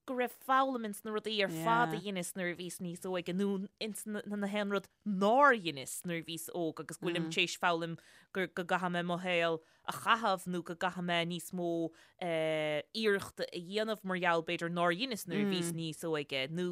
go raibh foghlaim ins na rudaí ar fad a dheineas nuair a bhíos níos óige nó ins na haon rud nár dheineas nuair a bhíos óg agus go bhfuilim tar éis foghlaim go gcaithfidh mé mo shaol a chaitheamh nó go gcaithfidh mé níos mó iarrachta a dhéanamh mar gheall b'fhéidir nár dheineas nuair a bhíos níos óige nó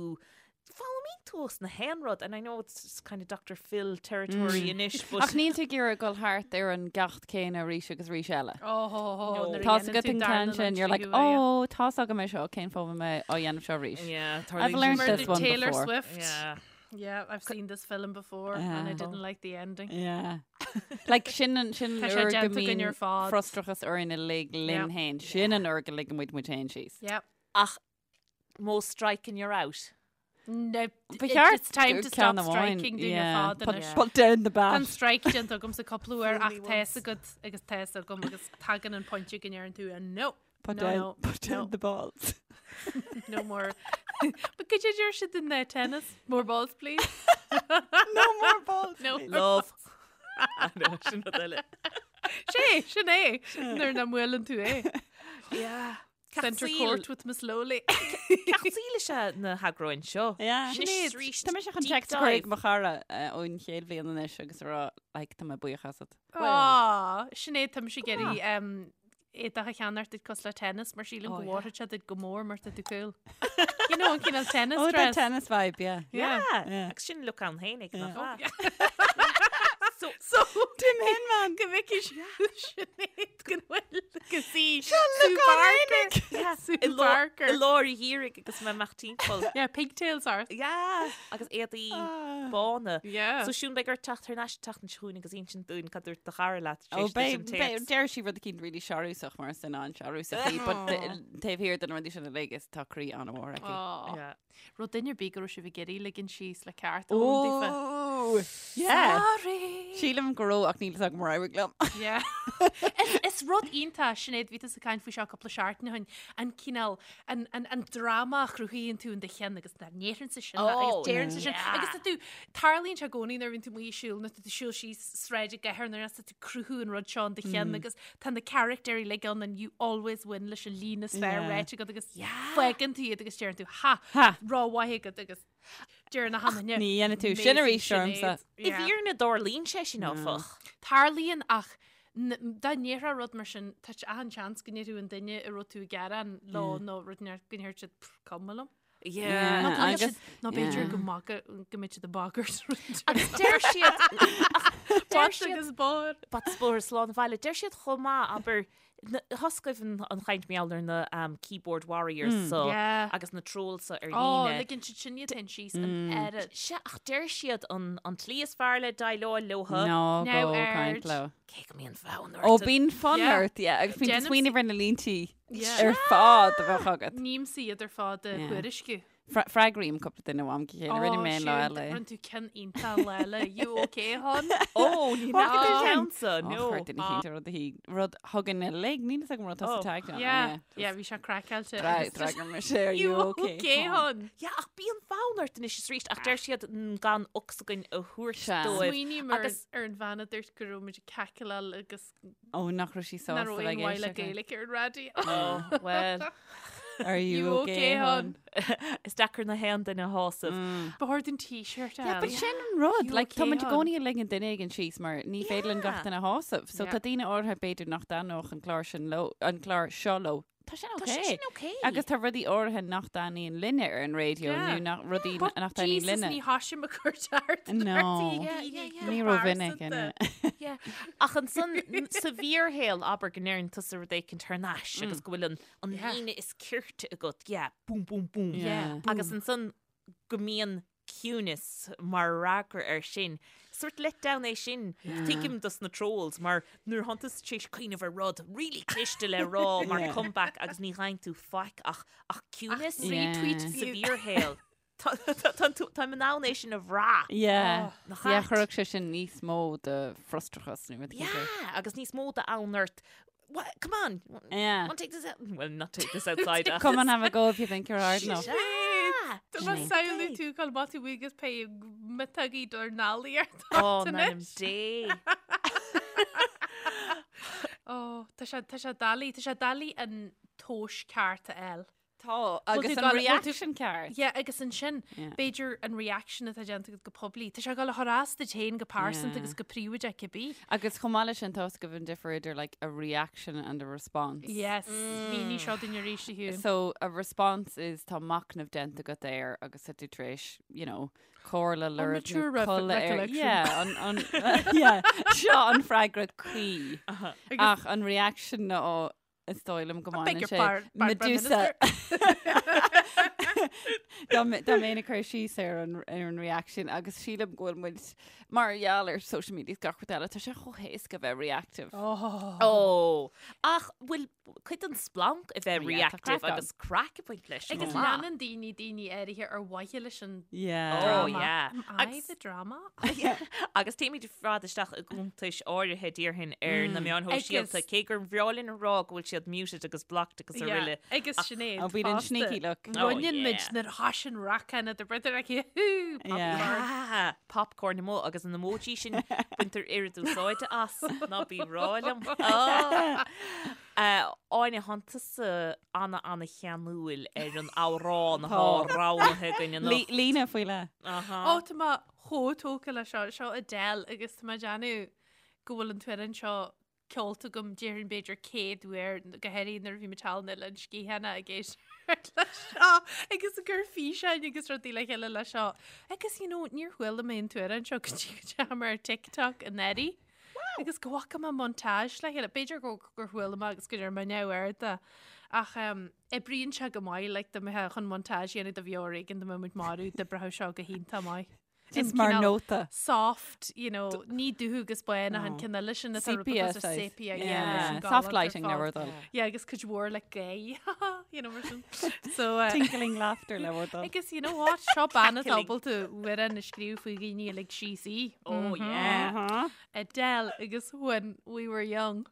foghlaimíonn tú as na haon rud and I know it's kind of Dr. Phil territory anois but Ach níl tú ag iarraidh dul thart ar an gceacht céanna arís agus arís eile. Oh, Tá agat an ceann sin, you're like, oh, tá's agam é seo, cén fáth a bhfuil mé á dhéanamh seo arís? Yeah, I've learned this one Taylor before. Swift. Yeah. Yeah, I've seen this film before and I didn't like the ending. Yeah. Like sin an sin Tá an sé uair go déanta againn mbíonn ar fad. frustrachas orainn uilig linn Yeah. féin. Sin an uair go ligeann muid muid féin síos. Yep. Ach modh strike and you're out. No, Ba cheart it's time to ceann stop amháin, striking dúinn ar yeah. fad Put, anois. put down the Tá an bat. strike déanta agamsa cúpla uair ach tá's agat agus tá's agam agus tagann an pointe go ndeireann tú no. Put no, down, no, put down no. the balls. No more. But could you deir siad in the tennis? More balls, please. No more balls. No. please. Love. I know, sin rud eile. Sé, sin é. Nuair nach mbuaileann tú é. Yeah. Centre court with Miss Lowly. Ceacht saoil is ea na heagráin seo. Yeah. Sinéad, arís, Tá mise chun deep text a chur ag dive. mo chara eh, ón chéad bhliain anois agus a rá like, tá mé buíoch asat. Á, Sinéad, tá mise ag iarraidh um, éadach a cheannacht duit cosúil le tennis mar sílim Oh, go yeah. bhfóirfeadh sé duit go mór mar tá tú cool. You know, an cineál tennis Oh, that dress. tennis vibe, yeah. Yeah. Yeah. Yeah. Agus sin look ann fhéinig nach Yeah. ea? So, So, Tim Hinman. go bhfeicfidh Sinéad go bhfuil go sí look ann Barker. Sue i lár Barker. i lár an gheimhridh agus mé amach timpeall. Yeah, pigtails ort. Yeah. Agus éadaí Ah. bána. Yeah. So Siún beidh ort teacht thar n-ais an tseachtain seo chugainn agus insint dúinn cad dúirt do chara leat tar Oh, éis duit an babe, babe, téacs. deir sí rud eicínt really searúsach mar sin an searúsach í, but taobh thiar de na rudaí sin uilig is tá croí an-mhór aici. Aw. Yeah. Raibh duine ar bith go raibh sibh ag iarraidh ligean síos le ceart a fhoghlaim daofa. Oh, yeah. Sorry. Sílim go raibh ach níl fhios agam ar éirigh liom. Yeah. Is, is rud iontach Sinéad bhí tusa ag caint faoi seo cúpla seachtain ó shin an cineál an, an, an dráma a chruthaíonn tú in do cheann agus ná ndéarfainnse sin Oh, agus déarfainnse sin yeah. agus tá tú tarlaíonn sé i gcónaí nuair a bhíonn tú amuigh ag siúl nó tá tú ag siúl síos sráid i gcathair nuair tá tú ag cruthú an rud seo in do cheann agus tá na carachtéirí uilig ann and you always win leis an líne is fearr Yeah. ráite agat agus fágann tú iad agus deireann tú ha Ha. Ró-mhaith agat agus deireann na hamaine. Ní dhéanfaidh tú sin arís ormsa. I bhfírinne tarlaíonn sé sin áfach. Tarlaíonn ach dá ndéarfá rud mar sin tá achan seans go ndéarfadh an duine a raibh tú ag gearán leo nó rud inteacht go ndéarfadh siad "Pff, cuma liom. Yeah, Nó go mbeadh agus- siad- nó b'fhéidir yeah. go maga- go mbeidh siad ag bagairt. Agus deir siad deir Bata siad agus bóthar. Bata is bóthar slán abhaile. Deir siad chomh maith abair Thoscaibh an chaint mar gheall ar na keyboard warriors so Yeah. agus na trolls so ar Ó, líne. ligeann siad sin iad féin síos an oiread. Sea, ach deir siad an an tslí is fearr le déileáil leo. Ná Now go aird. caint leo. Cé go mbíonn fonn Ó ort. bíonn fonn Yeah. ort, yeah, agus bíonn Déanaim smaoineamh ar na líntí Yeah. ar fad a bheadh agat. Nímsa iad ar fad a Yeah. thuairisciú. Freagraím cúpla duine ó am go chéile, rinne mé an lá eile. Rinne tú ceann iontach lá eile. You okay, hon? Ó, ní What nach did an you ceann so, Ó, no. chuir duine eicínt rud a hí rud thugann a lig, níl fhios agam rud tá Oh. tag ann. Yeah, yeah, bhí sé craiceáilte. agus just, D'fhreagair mise are You you okay, okay, hon? hon? Yeah, ach bíonn fonn ort anois is arís, ach deir siad mm, gan ocsaigin a thabhairt Sea. dóibh. Smaoiním ar Agus- ar an bhean a dúirt go raibh muid ag cackleáil agus Ó, nach raibh sí nach sásta raibh bheith aon mhaith le ag éisteacht. Gaeilge ar an raidió. Oh, well. Are you okay, hon? Is deacair na haon duine a shásamh. Ba chóir dúinn t-shirt a Yeah, but fháil. sin an rud. You Like, tá okay, muid i hon? gcónaí ag ligean duine éigin síos mar ní féidir linn gach Yeah. duine a shásamh. So Yeah. tá daoine áirithe b'fhéidir nach dtaitneodh an clár sin leo, an clár seo leo. Tá sin Tá sé okay. sin okay. Agus tá rudaí áirithe nach dtaitníonn linne ar an raidió Yeah. nó nach rudaí But nach dtaitníonn Jesus, linne. ní tháim ag cur ceart No. Yeah, yeah, yeah. Ní rómhinic ina. Yeah. Ach ansan sa bhfíorshaol abair go ndeireann tusa rud éicint thar n-ais agus go bhfuil an an Yeah. líne is cirte agat, yeah, boom, boom, boom. Yeah. Agus ansan go mbíonn ciúnas mar fhreagra air sin. Sort let down é sin. Tuigim dos na trolls mar nuair thánn tusa tar éis cuimhneamh ar rud really cliste le rá mar Yeah. comeback agus ní gheibheann tú faic ach ach ciúnas Yeah. Retweet sa fiú. bhfíorshaol. Táim in ann é sin a bhrath. Yeah. Nach Yeah, ait? chuirfeadh sé sin níos mó de frustrachas nó rud éigin. Yeah, agus níos mó d'fhonn ort. What, come on. Yeah. Want take this out? Well, not take this outside. ach- Come and have a go if you think you're hard enough. Yeah. Tá má samhlú tú chun má tú agus pé metaí dor nálaí ar Oh, in ainm Dé. Ó, tá sé tá sé doiligh, tá sé doiligh an tomhas ceart a fháil. Tá agus tú an gal- bhfuil tú- reaction ceart. Yeah, agus ansin, Yeah. b'fhéidir an reaction atá déanta agat go poiblí. Tá sé ag dul a chur as duit féin go pearsanta Yeah. agus go príobháideach cibé. Agus chomh maith leis sin tá a fhios agaibh an difear idir like a reaction and a response. Yes, mínigh seo dúinn arís a Shiún. So a response is tá machnamh déanta agat air agus tá tú tar éis, you know, comhairle lorg nó mature ref- codladh air. recollection. Yeah, an, an, yeah, seo an freagra cuí. Ach an reaction ná is dóigh liom go I beg mbaineann your sé par- par- Prime Medusa. Dá mbe- dá mbeinn ag cur síos ar an ar an reaction agus sílim go bhfuil muid mar gheall ar social media is gach rud eile, tá sé chomh héasca bheith reactive. Oh. Ó, ach bhfuil cuid den splanc a bheith Yeah, tá reactive craic ann. agus craic ag baint leis. Agus chomh maith. leanann daoine daoine áirithe ar mhaithe leis an Yeah. Oh, drama. yeah. Am I Agus- the drama? Agus téimid ar fad isteach i gcuntais áirithe déarfainn ar na meáin shóisialta, Agus- cé gur bhreá linn a rá go bhfuil siad muted agus blocked agus Yeah, araile. Agus Sinéad. Oh, bíonn an fosta. sneaky look. Oh, Roinneann muid yeah. nuair atá sin racán de brother aici. Hú, Yeah. popcorn. Ah, popcorn amuigh agus an emoji sin baintear oiread úsáide as ná bí rá liom. Oh. Áine thánn tusa ana ana cheanúil ar an amhrán atá Tá. roghnaithe againn anocht. Líne faoi leith. Aha. Ó tá mé chomh tógtha le seo, seo Adele agus tá mé ag déanamh go bhfuil an t-amhrán seo ceolta agam déarfainn b'fhéidir 100 uair go háirithe nuair a bhí mé thall in Oileán Sgitheanach ag éisteacht le seo agus ag cur físeáin agus rudaí le chéile le seo. Agus you know, níor chuala mé an t-amhrán seo go dtí go ndeachaigh mé ar TikTok anuraidh. Agus go bhfaca mé montage le chéile. B'fhéidir go gur chuala mé agus go ndearna mé neamhaird de. Ach um, oibríonn sé go maith like, dá mbeifeá chun montage a dhéanamh de bheo ar éigean dá mbeadh muid marbh d'oibreodh seo go hiontach maith. Just An mar cineál nóta. Soft, you know, ní dubh agus bán ach an Oh. ceann eile sin atá Sepia rud size. sepia, yeah, Yeah. leis an Soft galánta ar lighting le fad. bhur dtoil. Yeah, agus cuid mhór le gay, you know, mar sin. So, uh, Tinkling laughter le bhur dtoil. Agus you know what, seo bean atá Cackling. ábalta amhrán a scríobh faoi dhaoine a lig síos í. Oh, yeah. Uh-huh. Adele agus When We Were Young.